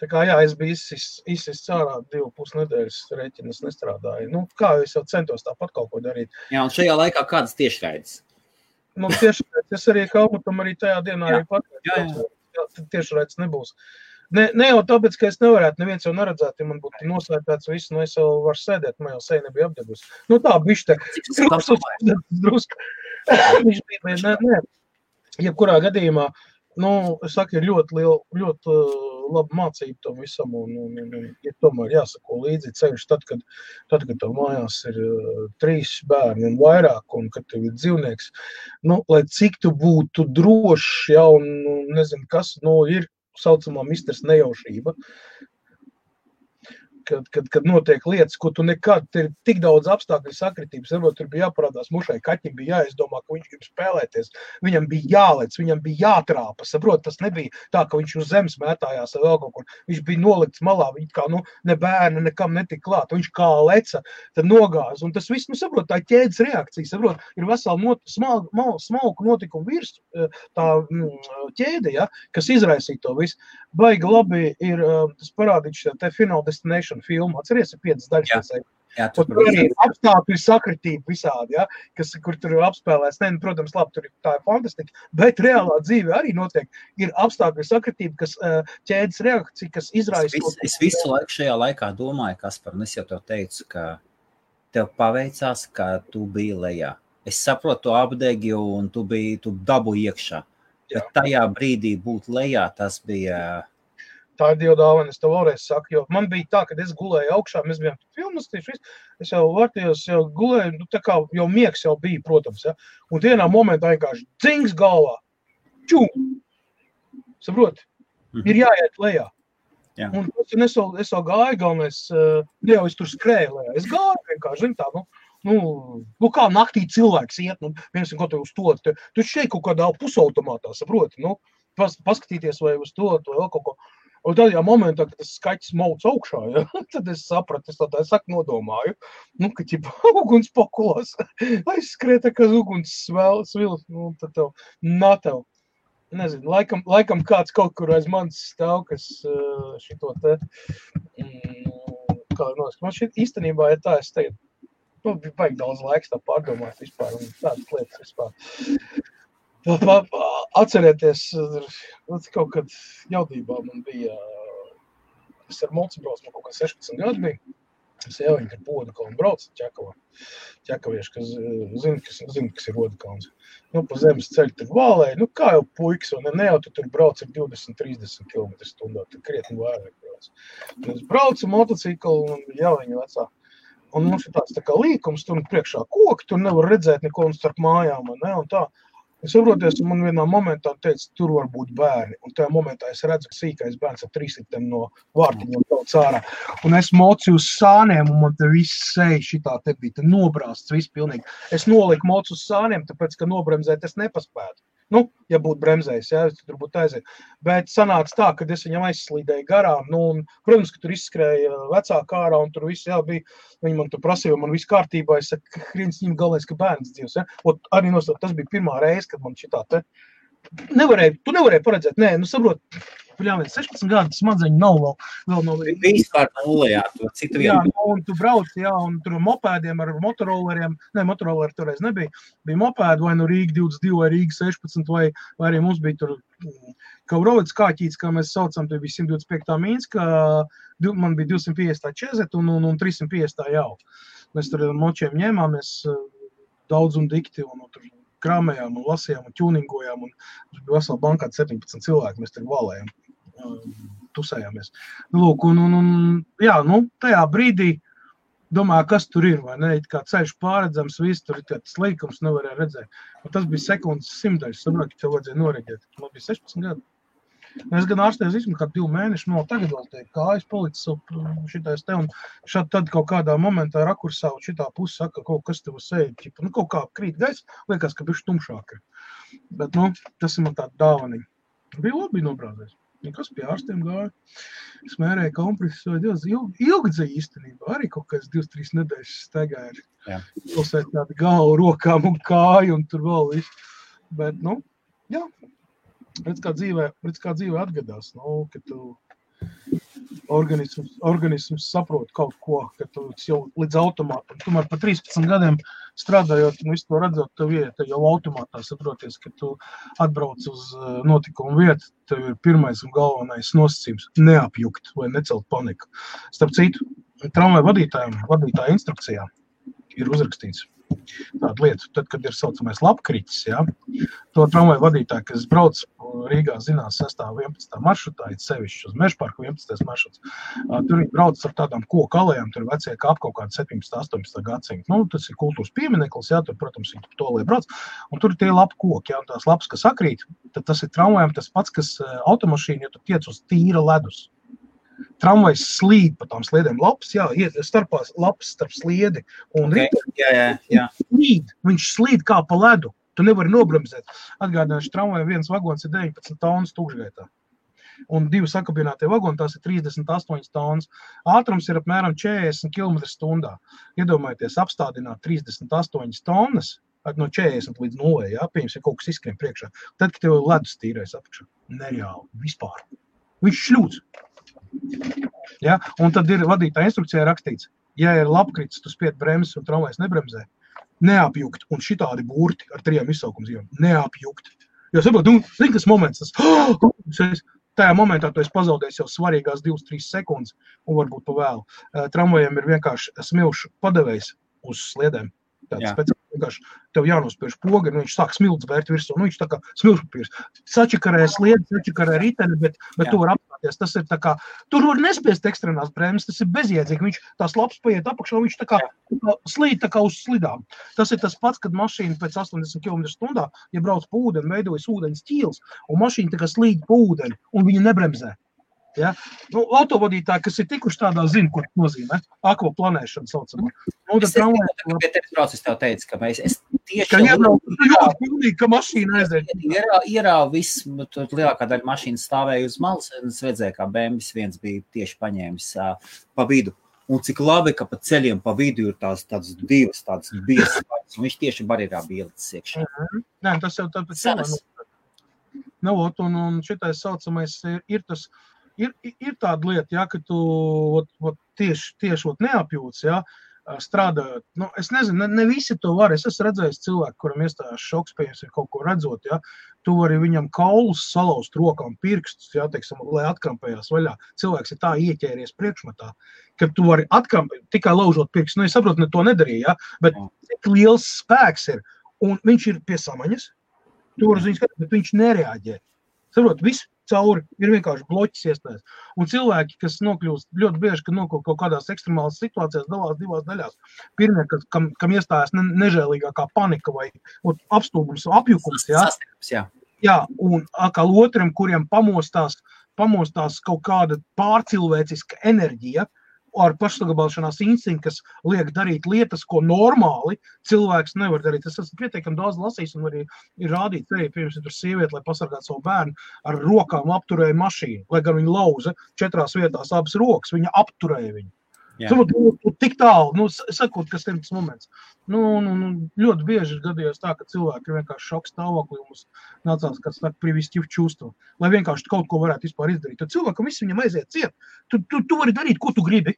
Tā kā, jā, es biju izsis cārā 2,5 nedēļas rēķinas nestrādāju. Kā es jau centos tāpat kaut ko darīt. Jā, un šajā laikā kādas tiešraides? Tiešraides, es arī Kalmutam arī tajā dienā arī pateicu. Tiešraides nebūs. Ne jau tāpēc, ka es nevarētu, neviens jau neredzētu, ja man būtu noslēpēts visu, es jau varu sēdēt, man jau seja nebija apdegusi. Tā bišķi te drusku. Viņš bija, nē. Jebkurā gadījumā, es saku, ir ļoti laba mācība tam visam, un ir tomēr jāsako līdzi ceļš tad, kad tev mājās ir 3 bērni un vairāk, un kad tev ir dzīvnieks. Lai cik tu būtu drošs, ja, un nezinu kas, ir saucamā misters nejaušība, kad notiek lietas, ko tu nekad, ir tik daudz apstākļu sakritības, varbūt tur bija jāparādās mušai, kaķim bija jāizdomā, ka viņš grib spēlēties, viņam bija jālec, viņam bija jātrāpa, saprot, tas nebija tā, ka viņš uz zemes mētājās vai vēl kaut kur, viņš bija nolikts malā, viņš kā, ne bērni nekam netika klāt, viņš kā leca, tad nogāz, un tas viss, saprot, tā ķēdes reakcija, saprot, ir vesela smalku notikumu virs, tā ķēde, ja, kas izraisīja to visu. Baigi labi ir, tas parādīts te Final Destination filmu, atceries, ir 5 daļas. Jā, tur arī apstākļu sakritība visādi, ja, kur tur apspēlēs. Protams, labi, tur tā ir fantastika, bet reālā dzīve arī notiek. Ir apstākļu sakritība, kas ķēdes reakcija, kas izraisa. Es visu laiku šajā laikā domāju, Kaspar, un es jau tev teicu, ka tev paveicās, ka tu biji lejā. Es saprotu, tu apdegi un tu dabu iekšā. Bet tajā brīdī būt lejā, tas bija... Tā ir Dieva dāvana, es tev vēlreiz saku, jo man bija tā, kad es gulēju augšā, mēs bijām filmas, es jau vārtījos, jau gulēju, tā kā jau miegs jau bija, protams, ja, un vienā momentā vienkārši dzings galvā, čum, saproti, ir jāiet lejā. Jā. Un es jau gāju, galvenais, jau es tur skrēju lejā, es gāju vienkārši, zin tā, kā naktī cilvēks iet, viens ko tev uz to, tu šeit kaut kādā pusautomātā, saproti, paskatīties vai uz to, vai vēl kaut ko. Un tādā momentā, kad tas skaķis mauc augšā, ja, tad es sapratu, es tā saku nodomāju, ka ķipa uguns pokulās, aizskrēta, ka uguns svils, tad tev, nezinu, laikam kāds kaut kur aiz manis stāv, kas šito te, man šeit īstenībā ir tā, es teiktu, vajag daudz laiks tā pārdomāt vispār, un tādas lietas vispār. Atcerieties, kaut kad jaudībā man bija, es ar mulci braucu, man kaut kā 16 gadu bija, es jau viņu ar Rodekalnu braucu ķekavieši, kas zina, kas ir Rodekalns. Pa zemes ceļu tur vālēja, kā jau puikas, un ne jau tu tur brauc ar 20-30 km/h, tur krietni vairāk brauc. Es braucu motociklu un jau viņu vecā. Un mums ir tāds tā kā līkums, tur priekšā koki, tur nevar redzēt neko un starp mājām, ne, un tā. Es saproties, un man vienā momentā teica, tur var būt bērni, un tajā momentā es redzu, ka sīkais bērns ar 3 litiem no vārtiņiem daudz ārā. Un es mocu uz sāniem, un man te viss seja šitā te bija, te nobrāsts viss pilnīgi. Es noliku mocu uz sāniem, tāpēc, ka nobremzēt es nepaspētu. Nu, ja būtu bremzējis, jā, tur būtu aiziet. Bet sanāca tā, kad es viņam aizslīdēju garām. Nu, un, protams, ka tur izskrēja vecāka ārā un tur viss, jā, bija. Viņi man tur prasīja, man viss kārtībā. Es saku, Hrīns viņam galvenais, ka bērns dzīvs. Ja? Un arī nosaukt, tas bija pirmā reize, kad man šitā te. Tu nevarēji paredzēt. Nē, nu saprot, 16 gadu smadzeņi nav vēl no... Vispār nulējā, cik tu jā, un tu brauc, jā, un tur mopēdiem ar motorolleriem, ne, motorolleri toreiz nebija, bija mopēdi vai no Rīga 22 vai Rīga 16, vai arī mums bija tur Kaurovids kāķīts, kā mēs saucam, tur bija 125. Mīnska, man bija 250. Čezet un 350. jau. Mēs tur ar močiem ņēmāmies daudz un dikti, un tur krāmējām un lasījām un ķūningojām, un tur bija vesela bankā 17 cilvēki, mēs tur valējām. Tusējāmies. Lūk, jā, nu, tajā brīdī domāju, kas tur ir, vai ne, kā ceļš pārredzams, viss tur ir tāds līkums, nevarēja redzēt. Un tas bija sekundes simtaļas, saprot, ka tev vajadzēja noreģēt. Man bija 16 gadi. Es gan ārstēju vismaz kā 2 mēneši, no tagad vēl te kājas palicis šitais te, un tad kaut kādā momentā rakursā un šitā pusi saka, kaut kas tev sēd, nu, kaut kā krīt gaisa, liekas, ka bišķi tumšāk ir. Bet, nu, tas ir man tāda dāvaniņa. Bija labi nobrāzēs. Nekas pie ārstiem gāja. Es mērēju kompresus vai Dievs. Ilgi dzēja īstenībā. Arī kaut kāds 2-3 nedēļas staigāja. Pilsēt tādi galvu, rokām un kāju un tur vēl visu. Bet, nu, jā. Redz kā dzīve atgadās. Nu, ka tu organisms saprot kaut ko, ka tu jau līdz automātam. Tomēr pa 13 gadiem strādājot un visu to redzot, tev iet jau automātā saproties, ka tu atbrauc uz notikumu vietu, tev ir pirmais un galvenais nosacījums neapjukt vai necelt paniku. Starp citu, tramvaju vadītāja instrukcijā ir uzrakstīts tāda lieta, tad, kad ir saucamais labkritis, jā, to tramvaju vadītāju, kas brauc Rīgā zinās 6. 11. maršrutā, it sevišķi uz Mežparku 11. maršruts, tur viņi brauc ar tādām koku alejām, tur vecie kāp kaut kādu 17. 18. gadsimtu. Nu, tas ir kultūras piemineklis, jā, tur, protams, viņi to lai brauc, un tur ir tie lapu koki, jā, un tās lapas, kas sakrīt, tad tas ir tramvajam tas pats, kas automašīna, ja tu tiec uz tīra ledus. Tramvajs slīd pa tām sliedēm lapas, jā, starpās lapas starp sliedi, un viņš slīd kā pa ledu, tu nevari nobremzēt. Atgādināšu, tramvajam viens vagons ir 19 tonnas tūkšgaitā, un 2 sakabinātie vagoni, tās ir 38 tonnas. Ātrums ir apmēram 40 km/h. Iedomājieties, apstādināt 38 tonnas, no 40 līdz 0, jā, pieņems, ja kaut kas izskrien priekšā. Tad, kad tev ledus tīrais apakšā, nereāli, vispār. Viņš šļūts. Ja? Un tad ir vadītāja instrukcijā rakstīts, ja ir labkritis, tu spied bremzes un tramvajs nebremzē, neapjukt, un šitādi burti ar 3 izsaukumzīmēm, neapjukt. Jo saprot, zini, kas moments, tajā momentā tu esi pazaudējis jau svarīgās 2-3 sekundes, un varbūt pa vēlu. Tramvajiem ir vienkārši smilšu padevējs uz sliedēm. Tāds speciāli vienkārši tev jānospiež poga, un viņš sāk smilts bērt virsū, nu viņš tā kā smilšpapīrs. Sačakarē sliedi, sačakarē riteni, bet tu var apstāties. Tas ir tā kā, tur var nespiest ekstrenās bremzes, tas ir bezjēdzīgi. Viņš tās lapas paiet apakšā, viņš tā kā slīd tā kā uz slidām. Tas ir tas pats, kad mašīna pēc 80 km/h, ja brauc pa ūdeni, veidojas ūdens ķīls, un mašīna tā kā slīd pa ūdeni, un viņa nebremzē. Ja? Nu, autovadītāji, kas ir tikuši tādā, zina, ko nozīmē. Akvaplanēšana saucamā. Nu, es pie tevis brauc, es tev teicu, ka es tieši... Ka ļoti pilnīgi, ka mašīna aiziet. Ierāva viss, tur lielākā daļa mašīnas stāvēja uz malas, un es redzēju, kā BMW viens bija tieši paņēmis pa vidu. Un cik labi, ka pa ceļiem pa vidu ir tādas divas, tādas biesas, un viņš tieši barjerā bija ielicis iekšā. Nē, tas jau tāpēc un šitais saucamais ir tas... Ir tāda lieta, ja, ka tu tieši neapjūts, ja, strādājot. Nu, es nezinu, ne visi to var. Es esmu redzējis cilvēku, kuram iestājās šoks, pieņems ir kaut ko redzot, ja. Tu vari viņam kaulus salauzt rokām pirkstus, ja, teiksim, lai atkrampējās vaļā. Cilvēks ir tā ieķēries priekšmatā, ka tu vari atkrampēt, tikai laužot pirkstus. Nu, es saprotu, ne to nedarīja, ja, bet cik liels spēks ir. Un viņš ir pie samaņas, tu vari ziņas, bet viņš nereaģē. Saprot, viss cauri ir vienkārši bloķis iestājas. Un cilvēki, kas nokļūst ļoti bieži, kad nokļūst kaut kādās ekstremālas situācijās, dalās 2 daļās. Pirmie, kam iestājas nežēlīgākā panika vai apstulbums, apjukums, jā, un atkal otram, kuriem pamostās kaut kāda pārcilvēciska enerģija, ar pašsaglabāšanās instinktu, kas liek darīt lietas, ko normāli cilvēks nevar darīt. Es esmu pietiekami daudz lasījis un arī ir rādīt, pirms ir tur sieviete, lai pasargātu savu bērnu, ar rokām apturēja mašīnu, lai gan viņa lauza 4 vietās abas rokas, viņa apturēja viņu. Tik tālu, sakot, kas ir tas moments. Ļoti bieži ir gadījās tā, ka cilvēki ir vienkārši šoks stāvoklī, un mums nācās, kāds saka, привести в чувство, lai vienkārši kaut ko varētu vispār izdarīt. Tad cilvēkam viss viņam aiziet ciet. Tu vari darīt, ko tu gribi.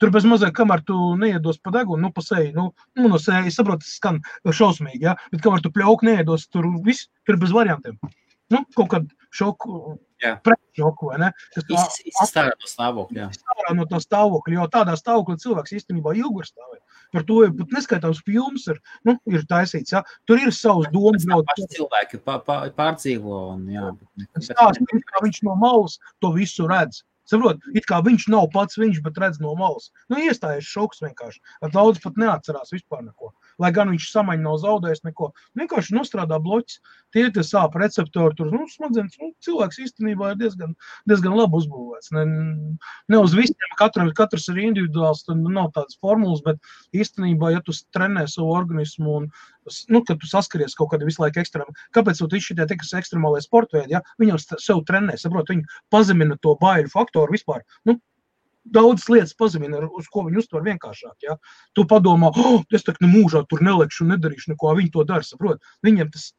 Tur bez mazliet, kamēr tu neiedos pa degunu, pa seju, no seju, es saprotu, tas skan šausmīgi, ja? Bet kamēr tu pļauku neiedos, tur viss, tur bez variantiem. Kaut kādu šoku, pretšoku, vai ne? Izstārā no stāvokļa, jā. Izstārā no tā stāvokļa, jo tādā stāvoklī cilvēks īstenībā ilgi var stāvēt. Par to pat neskaitāms filmas ir taisīts, jā. Tur ir savs domas. Paši cilvēki pārdzīvo un jā. Stāst, kā viņš no malas to visu redz. Saprot, it kā viņš nav pats viņš, bet redz no malas. Iestājies šoks vienkārši. Daudz pat neatcerās vispār neko. Lai gan viņš samaņa nav zaudējis neko. Vienkārši nostrādā bloķis. Tie sāp receptori, tur smadzenes. Cilvēks īstenībā ir diezgan labi uzbūvēts. Ne uz visiem, katrs ir individuāls, tad nav tādas formulas, bet īstenībā, ja tu trenē savu organismu un kad tu saskaries kaut kādā visu laiku ekstrēmā. Kāpēc tu šitie tikas ekstremālai sportveidi, ja? Viņam sev trenē, saprot, viņi pazemina to baiļu faktoru vispār. Daudzas lietas pazemina, uz ko viņi uztver vienkāršāk, ja? Tu padomā, es tak mūžā tur nelekšu un nedarīšu neko, viņi to dara, saprot. Viņiem tas,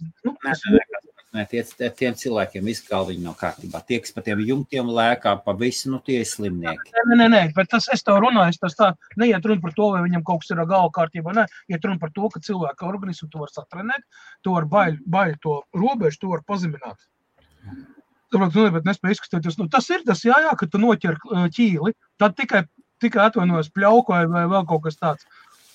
Tiem cilvēkiem visu galviņu nav kārtībā. Tie, kas pa tiem jumtiem lēkā, pa visu, tie ir slimnieki. Nē, bet es tev runāju, tas tā neiet runa par to, vai viņam kaut kas ir galva kārtībā, ne. Iet runa par to, ka cilvēka organismu tu var satrenēt, tu var baļu to robežu, tu var pazemināt. Bet nespēj izkustēties. Tas ir tas, jā, ka tu noķer ķīli, tad tikai atvainojas pļauku vai vēl kaut kas tāds.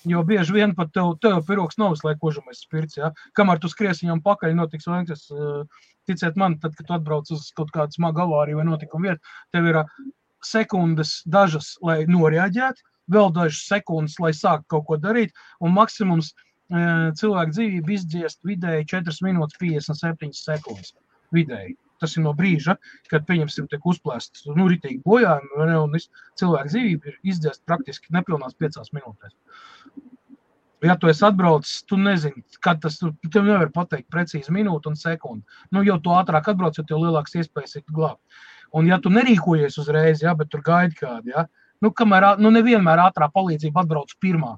Jo bieži vien pat tev piroks nav visu laiku kožamais spirts, jā. Kamēr tu skries viņam pakaļ, notiks vēl, ticiet man, tad, kad tu atbrauc uz kaut kādu smagu avāriju vai notikumu vietu, tev ir sekundes dažas, lai noreaģētu, vēl dažas sekundes, lai sāk kaut ko darīt, un maksimums cilvēku dzīvību izdziest vidēji 4 minūtes 57 sekundes vidēji. Tas ir no brīža, kad, pieņemsim, tiek uzplēsts, ritīgi bojājumi, un cilvēku dzīvība ir izdziest praktiski nepilnās 5 minūtēs. Ja tu esi atbraucis, tu nezini, kad tas, tev nevar pateikt precīzi minūtu un sekundi. Jau tu ātrāk atbrauc, jo tev lielāks iespējas ir glābt. Un ja tu nerīkojies uzreiz, bet tur gaidi kādi, kamēr, nevienmēr ātrā palīdzība atbrauc pirmā.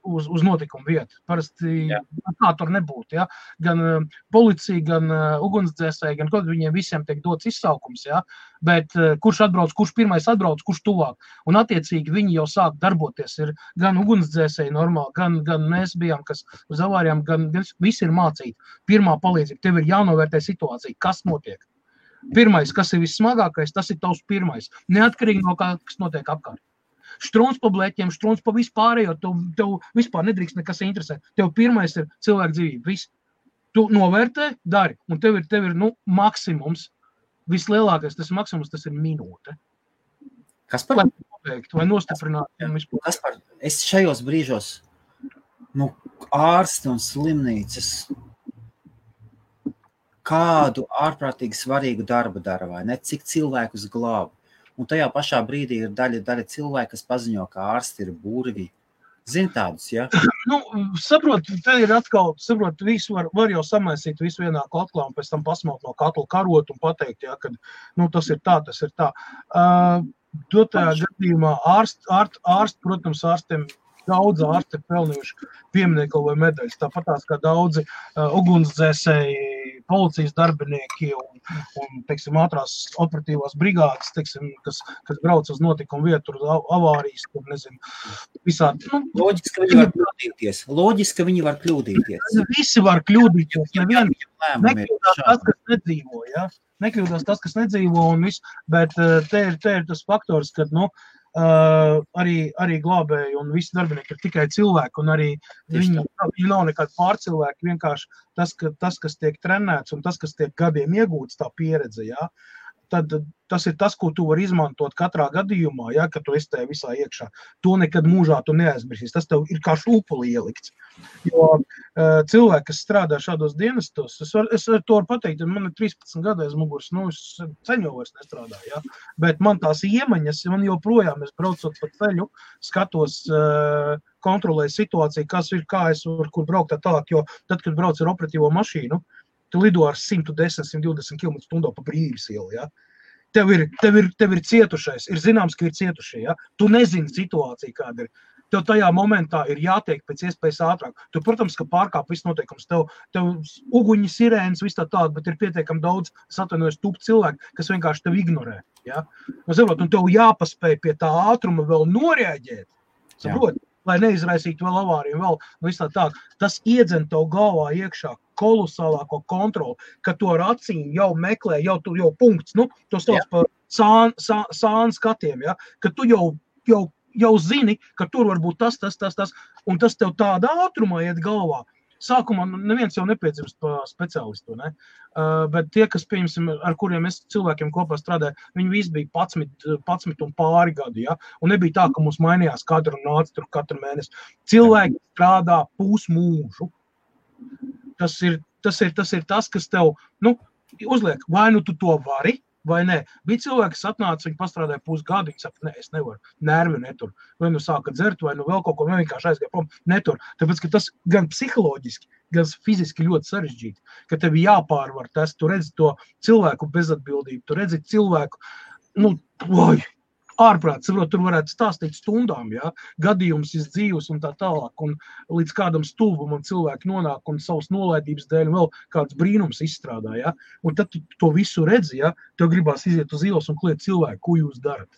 Uz notikumu vietu. Parasti tā tur nebūtu, ja? Gan policija, gan ugunsdzēsēji, gan kaut viņiem visiem tiek dots izsaukums, ja? Bet kurš atbrauc, kurš pirmais atbrauc, kurš tuvāk. Un attiecīgi viņi jau sāk darboties. Ir gan ugunsdzēsēji normāli, gan mēs bijām, kas uz avārijām, gan visi ir mācīti. Pirmā palīdzība, tev ir jānovērtē situācija, kas notiek. Pirmais, kas ir vissmagākais, tas ir tavs pirmais. Neatkarīgi no kā, kas notiek apkārt. Strūns pa blēķiem, strūns pa vispārējo, tev vispār nedrīkst nekas interesē. Tev pirmais ir cilvēku dzīvība, viss. Tu novērtē, dari, un tev ir maksimums, vislielākais tas maksimums, tas ir minūte. Kas par? Lai pabeigt, vai nostiprināt. Kas par? Es šajos brīžos, ārsti un slimnīcas, kādu ārprātīgi svarīgu darbu dara, vai ne? Cik cilvēkus glāb. Un tajā pašā brīdī ir daļa cilvēki, kas paziņo, ka ārsti ir burvi. Zini tādus, ja? Saprot, te ir atkal, visu var jau samaisīt visu vienā katlā un pēc tam pasmaut no katla karot un pateikt, ja, ka tas ir tā, tas ir tā. Dotajā gadījumā ārsti, protams, ārstiem daudz ārsti ir pelnījuši pieminiekli vai medaļas. Tāpatās kā daudzi ugunsdzēsēji, policijas darbinieki un teiksim, ātrās operatīvās brigādes, teiksim, kas brauc uz notikumu vietu, avārijas, tur nezinu, visādi. Loģiski, ka viņi var kļūdīties. Visi var kļūdīties. Nekļūdās tas, kas nedzīvo, ja? Nekļūdās tas, kas nedzīvo un viss, bet te ir tas faktors, kad, arī glābēji un visi darbinieki ir tikai cilvēki, un arī viņi nav nekādi pārcilvēki, vienkārši tas, kas tiek trenēts un tas, kas tiek gadiem iegūts, tā pieredze, jā. tad tas ir tas, ko tu vari izmantot katrā gadījumā, ja, kad tu esi tajā visā iekšā. To nekad mūžā tu neaizmirsīsi. Tas tev ir kā šūpuli ielikts. Jo cilvēki, kas strādā šādos dienestos, es to varu pateikt, man ir 13 gadu aiz muguras, es ceļu jau vairs nestrādāju, ja, bet man tās iemaņas, man joprojām, es braucot pa ceļu, skatos, kontrolēju situāciju, kas ir, kā es varu, kur braukt tā tālāk, jo tad, kad brauc ar operatīvo mašīnu, tu lido ar 110-120 km/h pa Brīvības ielu, ja. Tev ir cietušais, ir zināms, ka ir cietušie, ja. Tu nezini situāciju, kāda ir. Tev tajā momentā ir jātiek pēc iespējas ātrāk. Tu, protams, ka pārkāp viss noteikums. Tev uguņi, sirēnas, viss tā tāda, bet ir pietiekami daudz, es atvainojos, tupi cilvēki, kas vienkārši tev ignorē, ja. Un tev jāpaspēj pie tā ātruma vēl noreaģēt, saprot? Lai neizraisītu vēl avāriju, vēl viss tā. Tas iedzen tev galvā iekšā kolosālāko kontroli, ka to ar acīm jau meklē, jau punkts, to sauc par sānu skatiem, ja, ka tu jau zini, ka tur var būt tas, un tas tev tādā ātrumā iet galvā. Sākumā neviens jau nepiedzimst pa speciālistu, ne? Bet tie, kas, pieņemsim, ar kuriem es cilvēkiem kopā strādāju, viņi visi bija 11 un pāri gadi, ja? Un nebija tā, ka mums mainījās katru mēnesi. Cilvēki strādā pusmūžu. Tas ir tas, kas tev, uzliek, vai tu to vari, vai nē. Bija cilvēki, kas atnāca, viņi pastrādāja pusgadu, viņi saka, es nevaru, nervi netur. Vai sāka dzert, vai vēl kaut ko, vai vienkārši aizgāja prom, netur. Tāpēc, ka tas gan psiholoģiski, gan fiziski ļoti sarežģīti, ka tev jāpārvar tas, tu redzi to cilvēku bezatbildību, tu redzi cilvēku, ārprāt, saprot, tur varētu stāstīt stundām, ja, gadījums iz dzīves un tā tālāk, un līdz kādam stulbumam cilvēki nonāk un savas nolaidības dēļ vēl kāds brīnums izstrādā, ja, un tad tu to visu redzi, ja, tev gribās iziet uz ielas un kliet cilvēku, ko jūs darat.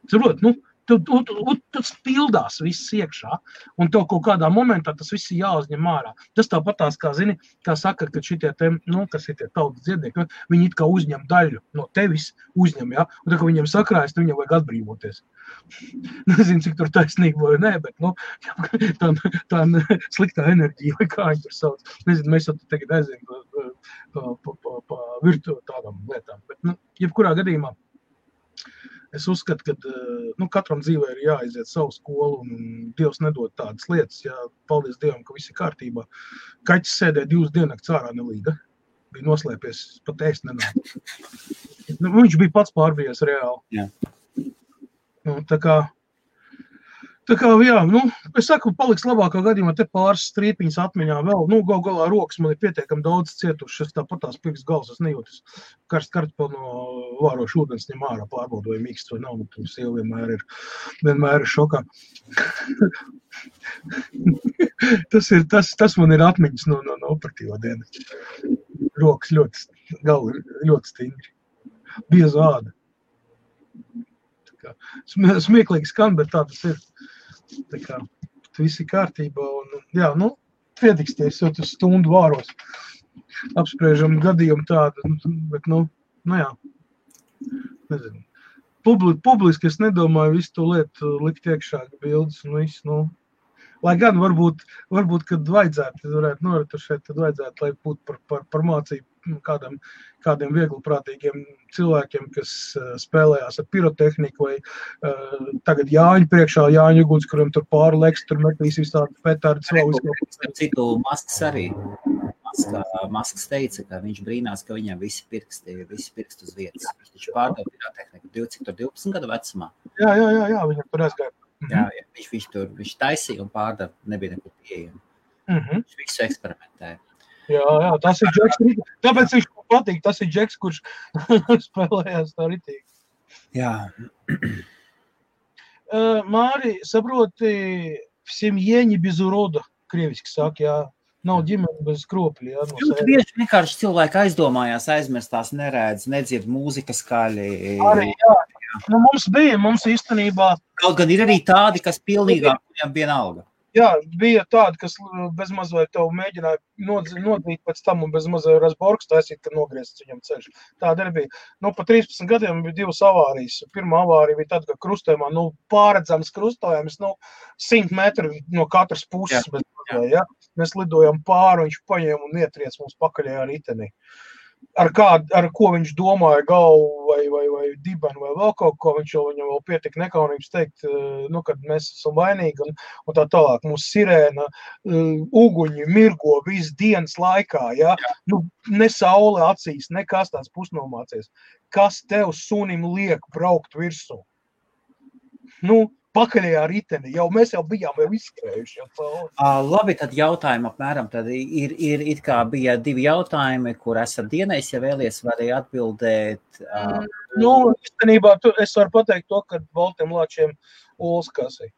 Saprot, tas pildās viss iekšā, un tev kaut kādā momentā tas viss ir jāuzņem ārā. Tas tāpat tās, kā zini, kā saka, ka šitie kas ir tie tautas dziednieki, viņi it kā uzņem daļu no tevis, ja, un tā, ka viņiem sakrājas, tad viņam vajag atbrīvoties. Nezinu, cik tur taisnība vai nē, bet, tā sliktā enerģija, vai kā viņi tur sauc. Nezinu, mēs jau tagad aizējam pa virtu tādām lietām, bet, jebkurā gadījumā, es uzskatu, ka katram dzīvē ir jāaiziet savu skolu, un Dievs nedod tādas lietas, ja paldies Dievam, ka viss ir kārtībā. Kaķis sēdēja 2 diennakts ārā nelīga, bija noslēpies, pat ēst nenāk. Viņš bija pats pārbijies reāli. Jā. Tā kā, jā, es saku, paliks labākā gadījumā te pāris strīpiņas atmiņā vēl, galā rokas man ir pietiekami daudz cietušas, tāpat tās pirks gals, es nejūtas kartpeli no vārošu ūdens ņem ārā, pārbaudu vai mīksts vai nav, un sieva vienmēr ir šokā. tas man ir atmiņas no operatīvā dienas. Rokas ļoti stingri. Biezu āda. Smieklīgi skan, bet tā tas ir. Tā kā viss ir kārtībā un, jā, pietiksties, jo tas stundu vāros. Apspriežam gadījumu tādu, bet, jā, nezinu. Publiski es nedomāju visu to lietu likt iekšā bildes un visu, Lai gan varbūt, kad vajadzētu, varētu noretušēt, tad vajadzētu, lai būtu par mācību kādiem viegliprātīgiem cilvēkiem, kas spēlējās ar pirotehniku vai tagad Jāņu priekšā, Jāņu uguns, kuram tur pāri leks, tur metīs visādi petardi savu izkaupu. Citu Masks arī. Masks teica, ka viņš brīnās, ka viņam visi pirksti uz vietas. Viņš taču pārdeva pirotehniku 12 gadu vecumā. Jā, viņam tur aizgāja. Jā, viņš taisīja un pārdeva, nebija nekur pieejama. Viņš visu eksperimentēja. Jā, tas ir Džeks. Tāpēc viņš patīk, tas ir Džeks, kurš spēlējās tā ritīgi. Jā. Māri, saproti, в семье не без урода, krieviski saka, jā. Nav ģimene bez kropļi, jā. Ļoti bieži vienkārši cilvēki aizdomājās, aizmirstās, neredz, nedzird mūzika skaļi. Arī, jā. Mums īstenībā... Kaut gan ir arī tādi, kas pilnīgāk viņam vienalga. Jā, bija tādi, kas bezmaz vai tev mēģināja nodīt pēc tam un bezmaz vai Rasborgs taisīt, ka nogriezts viņam ceļš. Tāda arī bija. Pa 13 gadiem bija 2 avārijas. Pirmā avārija bija tāda, ka krustojumā, pārredzams krustojums, 100 metri no katras puses. Jā. Mēs lidojam pāri, viņš paņēma un ietriec mums pakaļējā ritenī. ar ko viņš domāja galvu vai dibenu vai vēl kaut ko, viņam vēl pietika nekaunības teikt, kad mēs esam vainīgi un tā tālāk. Mūsu sirēna, uguņi, mirgo visu dienas laikā, ja? Ne saule acīs, nekas tāds pusnomācies. Kas tev sunim liek braukt virsū? Pakaļajā riteni, mēs jau bijām izskrējuši. Labi, tad jautājumi apmēram, tad ir it kā bija 2 jautājumi, kur esat dienējis, ja vēlies, varēja atbildēt. Īstenībā es varu pateikt to, ka Baltiem Lāčiem olas kasī.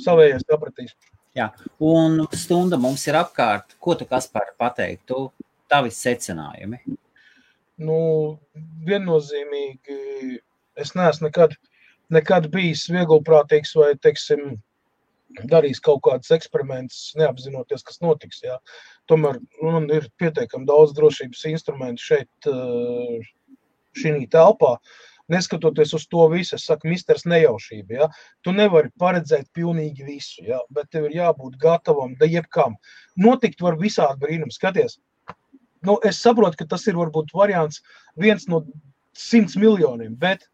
Savējais sapratīs. Jā, un stunda mums ir apkārt. Ko tu, Kaspar, pateiktu? Tavi secinājumi? Viennozīmīgi, es neesmu nekad bijis vieglprātīgs vai, teiksim, darījis kaut kādus eksperimentus, neapzinoties, kas notiks. Jā. Tomēr man ir pietiekami daudz drošības instrumentu šeit, šī telpā. Neskatoties uz to visu, es saku, misters nejaušība. Jā. Tu nevari paredzēt pilnīgi visu, jā, bet tev ir jābūt gatavam, da jebkam. Notikt var visādi brīnumi. Skaties, es saprotu, ka tas ir varbūt variants 1 no 100 miljoniem, bet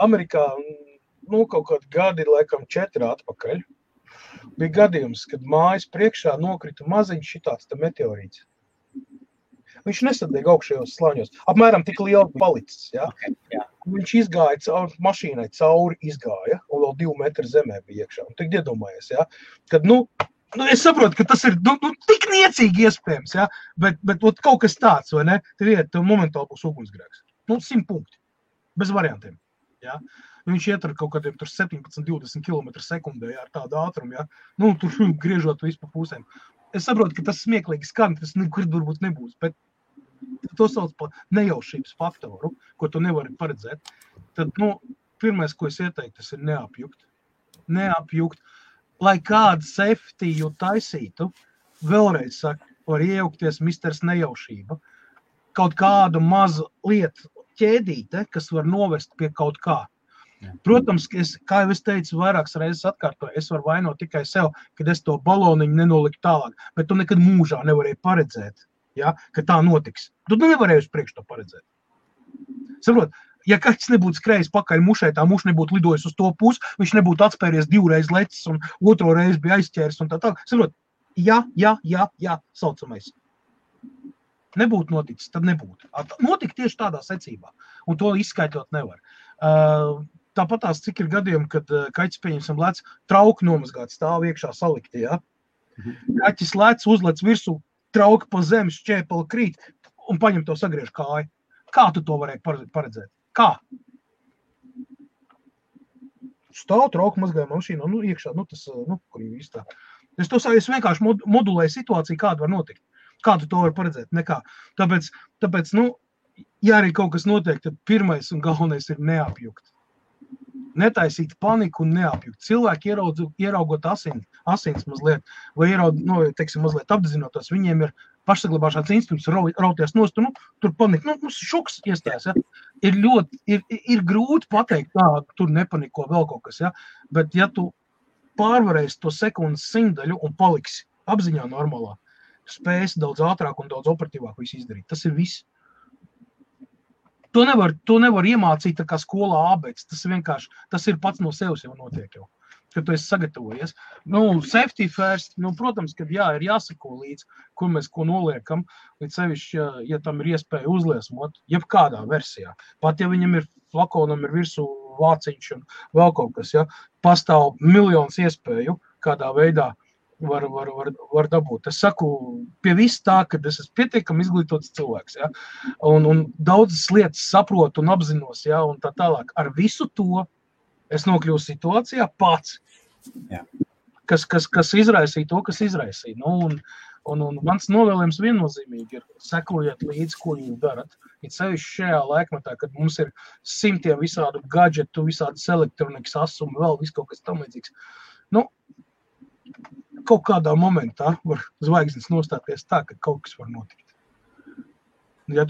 Amerikā, kaut kādi gadi, laikam 4 atpakaļ, bija gadījums, kad mājas priekšā nokrita maziņš šitāds meteorīts. Viņš nesadēja augšējos slāņos. Apmēram tik liela palicis, jā. Jā. Viņš izgāja mašīnai cauri, un vēl 2 metri zemē bija iekšā. Un tik iedomājies, jā, kad, es saprotu, ka tas ir tik niecīgi iespējams, jā, bet kaut kas tāds, vai ne? Tev momentāli būs ugunsgrēks. 100 punkti. Bez variantiem. Ja? Viņš iet ar kaut kādiem 17-20 km sekundē ar tādu ātrumu, ja? Tur griežot visu pa pusēm. Es saprotu, ka tas smieklīgi skan, tas nekur varbūt nebūs, bet to sauc par nejaušības faktoru, ko tu nevari paredzēt. Tad, pirmais, ko es ieteiktu, tas ir neapjukt. Neapjukt. Lai kādu safety taisītu, vēlreiz saku, var iejaukties misters nejaušība. Kaut kādu mazu lietu ķēdīte, kas var novest pie kaut kā. Protams, kā jau es teicu, vairākas reizes atkārtoju, es varu vainot tikai sev, kad es to baloniņu nenoliku tālāk, bet tu nekad mūžā nevarēji paredzēt, ja, ka tā notiks. Tu nevarēji uz priekšu to paredzēt. Saprot, ja kāds nebūtu skrējis pakaļ mušai, tā muša nebūtu lidojis uz to pusi, viņš nebūtu atspēries 2 reizes lecis un 2 reizi bija aizķēris un tā. Saprot, jā, saucamais. Nebūtu noticis, tad nebūtu. Notika tieši tādā secībā, un to izskaidrot nevar. Tāpatās, cik ir gadījumi, kad kaķis pieņemsim lec, trauki nomazgāt stāv iekšā salikti, ja? Kaķis lec, uzlec virsū, trauki pa zemes, šķēpeli krīt, un paņem to sagriež kāju. Kā tu to varēji paredzēt? Kā? Stāv, trauki mazgāja mašīnu, iekšā, kur jau īstā. Es vienkārši modulēju situāciju, kāda var notikt. Kā tu to var paredzēt? Nekā. Tāpēc, ja arī kaut kas notiek, tad pirmais un galvenais ir neapjukt. Netaisīt paniku un neapjukt. Cilvēki ieraugot asins mazliet, vai mazliet apzinotos, viņiem ir pašsaglabāšanas instinkts, rauties nost, tur panika, šoks iestājas, ja. Ir grūti pateikt, tur nepaniko vēl kaut kas, ja, bet ja tu pārvarēsi to sekundes simtaļu un paliksi apziņā normālā, spējas daudz ātrāk un daudz operatīvāk visu izdarīt. Tas ir viss. To nevar iemācīt tā kā skolā ābēc. Tas ir pats no sevis jau notiek jau, kad tu esi sagatavojies. Safety first, protams, kad ir jāsako līdz, kur mēs ko noliekam, līdz sevišķi, ja tam ir iespēja uzliesmot, jebkādā versijā. Pat ja viņam ir flakonam ir virsū vāciņš un vēl kaut kas, ja, pastāv miljonus iespēju, kādā veidā var dabūt. Es saku, pie viss tā, ka es esmu pietiekami izglītots cilvēks, ja, un daudzas lietas saprotu un apzinos, ja, un tā tālāk. Ar visu to es nokļuvu situācijā pats, kas izraisīja to, kas izraisīja. Un mans novēlējums viennozīmīgi ir sekojiet līdzi, ko jūs darat. Ir sevišķi šajā laikmetā, kad mums ir simtiem visādu gadžetu, visādas elektronikas asumu, vēl viss kaut kas tam līdzīgs. Kaut kādā momentā var zvaigznes nostāties tā, ka kaut kas var notikt. Ja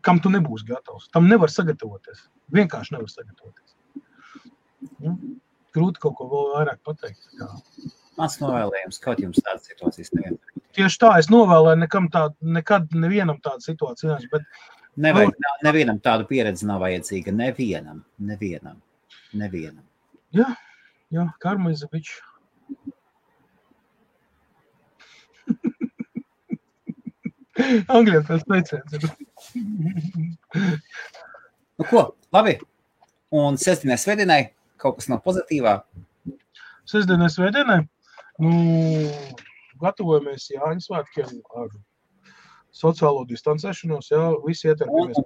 kam tu nebūsi gatavs? Tam nevar sagatavoties. Vienkārši nevar sagatavoties. Grūti kaut ko vēl vairāk pateikt. Mans novēlējums, kaut jums tādas situācijas nevienmēr. tieši tā, es novēlēju nekad nevienam tādu situāciju, bet nevajag, nevienam tādu pieredzi nav vajadzīga, nevienam. Jā, karma is a bitch. Angļiem pēc teiciens. Nu ko, labi. Un sestdienai, svētdienai kaut kas nav pozitīvā? Sestdienai, svētdienai? Gatavojamies Jāņu svētkiem ar sociālo distancēšanos, jā, visi ietarpjamies.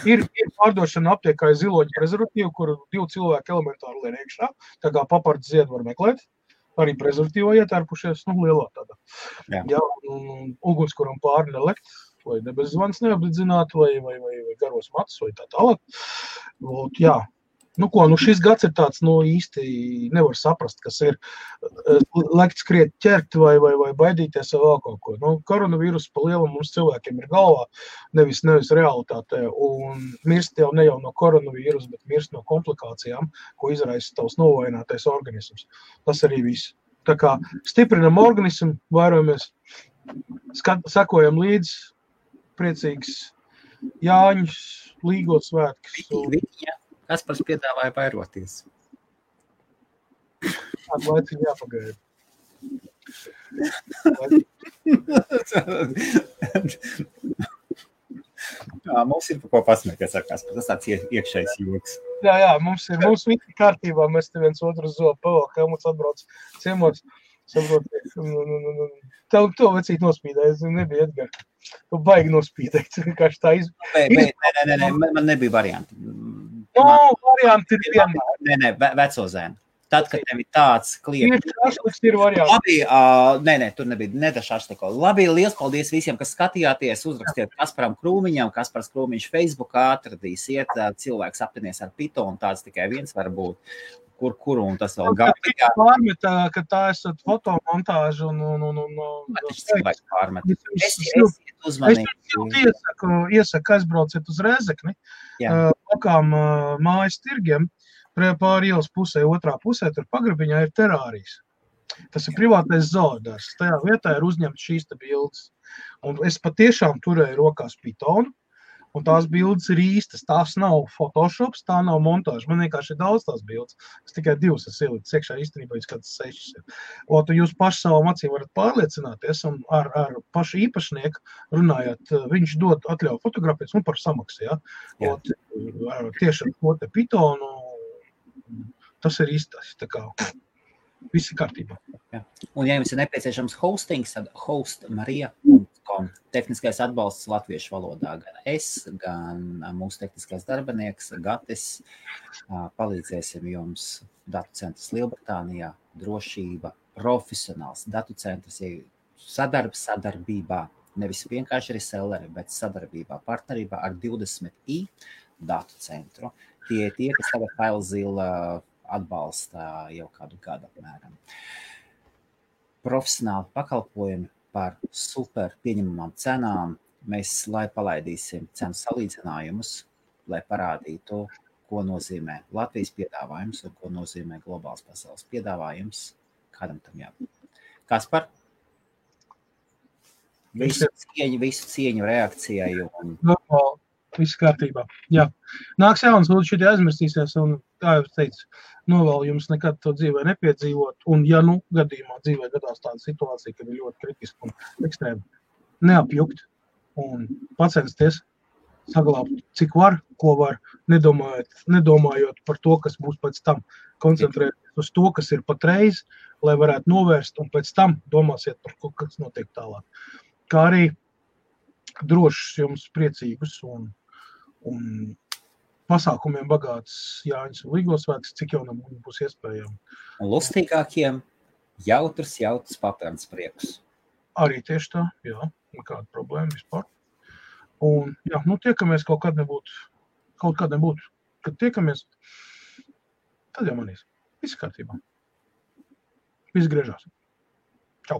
Ir pārdošana aptiekā ziloņu prezervatīvu, kuru 2 cilvēki elementāri lien iekšā, tā kā papards ziedu var meklēt, arī prezervatīvo ietērpušies, lielā tādā. Jā, un ugunskuram pāri nelekt, vai nebezvans neapdedzināt, vai garos matus, vai tā tālāk. Jā. Šis gads ir tāds, īsti nevar saprast, kas ir lekt skriet ķert vai baidīties vai vēl kaut ko. Koronavīrus pa lielam mums cilvēkiem ir galvā, nevis realitātē, un mirst jau ne jau no koronavīrus, bet mirst no komplikācijām, ko izraisa tavs novājinātais organisms. Tas arī viss. Tā kā stiprinam organismu, vairojamies, sekojam līdz, priecīgs Jāņus, Līgot svētkus. Kaspars piedāvāja vairoties. Tādu laiciņu jāpagaida. Mums ir par ko pasmēties ar Kasparu. Tas tāds iekšējs joks. Jā, mums visi kārtībā. Mēs te viens otru zobu pavēl, ka mums atbrauc ciemos. Tev to vecīt nospīdēja, es nebija Edgar. Tu baigi nospīdēt. Nē, man nebija varianti. Varianti ir vienmēr. Nē, veco zēnu. Tad, kad tev ir tāds klieks. Šašliks ir varianti. Labi, tur nebija ne šašliko. Labi, liels paldies visiem, kas skatījāties. Uzrakstiet Kasparam Krūmiņam, Kaspars Krūmiņš Facebookā atradīsiet. Cilvēks aptinies ar Pythonu, tāds tikai viens var būt. Kur un tas vēl gāja. Pārmet, ka tā esat fotomontāžu Tas cilvēks pārmet. Esiet uzmanīgi. Es iesaku aizbrauciet uz Rēzekni, lokām mājas tirgiem, pāri ielas pusē, otrā pusē, tur pagrabiņā ir terārijas. Tas ir privātais zoodārs. Tajā vietā ir uzņemts šīs te bildes. Un es patiešām turēju rokās Pythonu, un tās bildes ir īstas. Tās nav Photoshops, tā nav montāža. Man vienkārši ir daudz tās bildes. Es tikai 2 esmu ielicis iekšā, īstenībā jūs kāds 6 ir. Jūs paši savām acīm varat pārliecināties, un ar pašu īpašnieku runājot, viņš dod atļauju fotografēt un par samaksu. Ja? Tieši ar ko te Pythonu, tas ir īstais. Tā kā viss ir kārtībā. Jā. Un ja jums ir nepieciešams hostings, tad hostmarija.com. Tehniskais atbalsts latviešu valodā. Gan es, gan mūsu tehniskais darbinieks, Gatis. Palīdzēsim jums datu centrs Lielbritānijā, drošība, profesionāls datu centrs, sadarbībā, nevis vienkārši reselleri, bet sadarbībā, partnerībā ar 20i datu centru. Tie, kas tagad FileZilla atbalsta jau kādu gadu apmēram. Profesionāli pakalpojumi par super pieņemamām cenām. Mēs, lai palaidīsim cenu salīdzinājumus, lai parādītu, ko nozīmē Latvijas piedāvājums un ko nozīmē globāls pasaules piedāvājums. Kādam tam jābūt? Kaspar? Visu cieņu reakcijai un... Viss kārtībā. Jā. Nāks jauns, lūdzu, šitie aizmirstīsies, un, kā jau teicu, novēlu jums nekad to dzīvē nepiedzīvot, un, ja gadījumā dzīvē gadās tāda situācija, kad ir ļoti kritiski un ekstrēmi, neapjukt un pacensties saglābt, cik var, ko var, nedomājot par to, kas būs pēc tam. Koncentrēties uz to, kas ir patreiz, lai varētu novērst, un pēc tam domāsiet par ko, kas notiek tālāk. Kā arī drošs jums priecīgus un pasākumiem bagāts Jāņus un Līgo svētkus, cik jau būs iespējami. Un lustīgākiem jautrs papērns prieks. Arī tieši tā, jā, nekāda problēma vispār. Un, jā, tiekamies kaut kādā nebūtu. Kad tiekamies, tad jau manīs. Viss kārtībā. Viss griežās. Čau.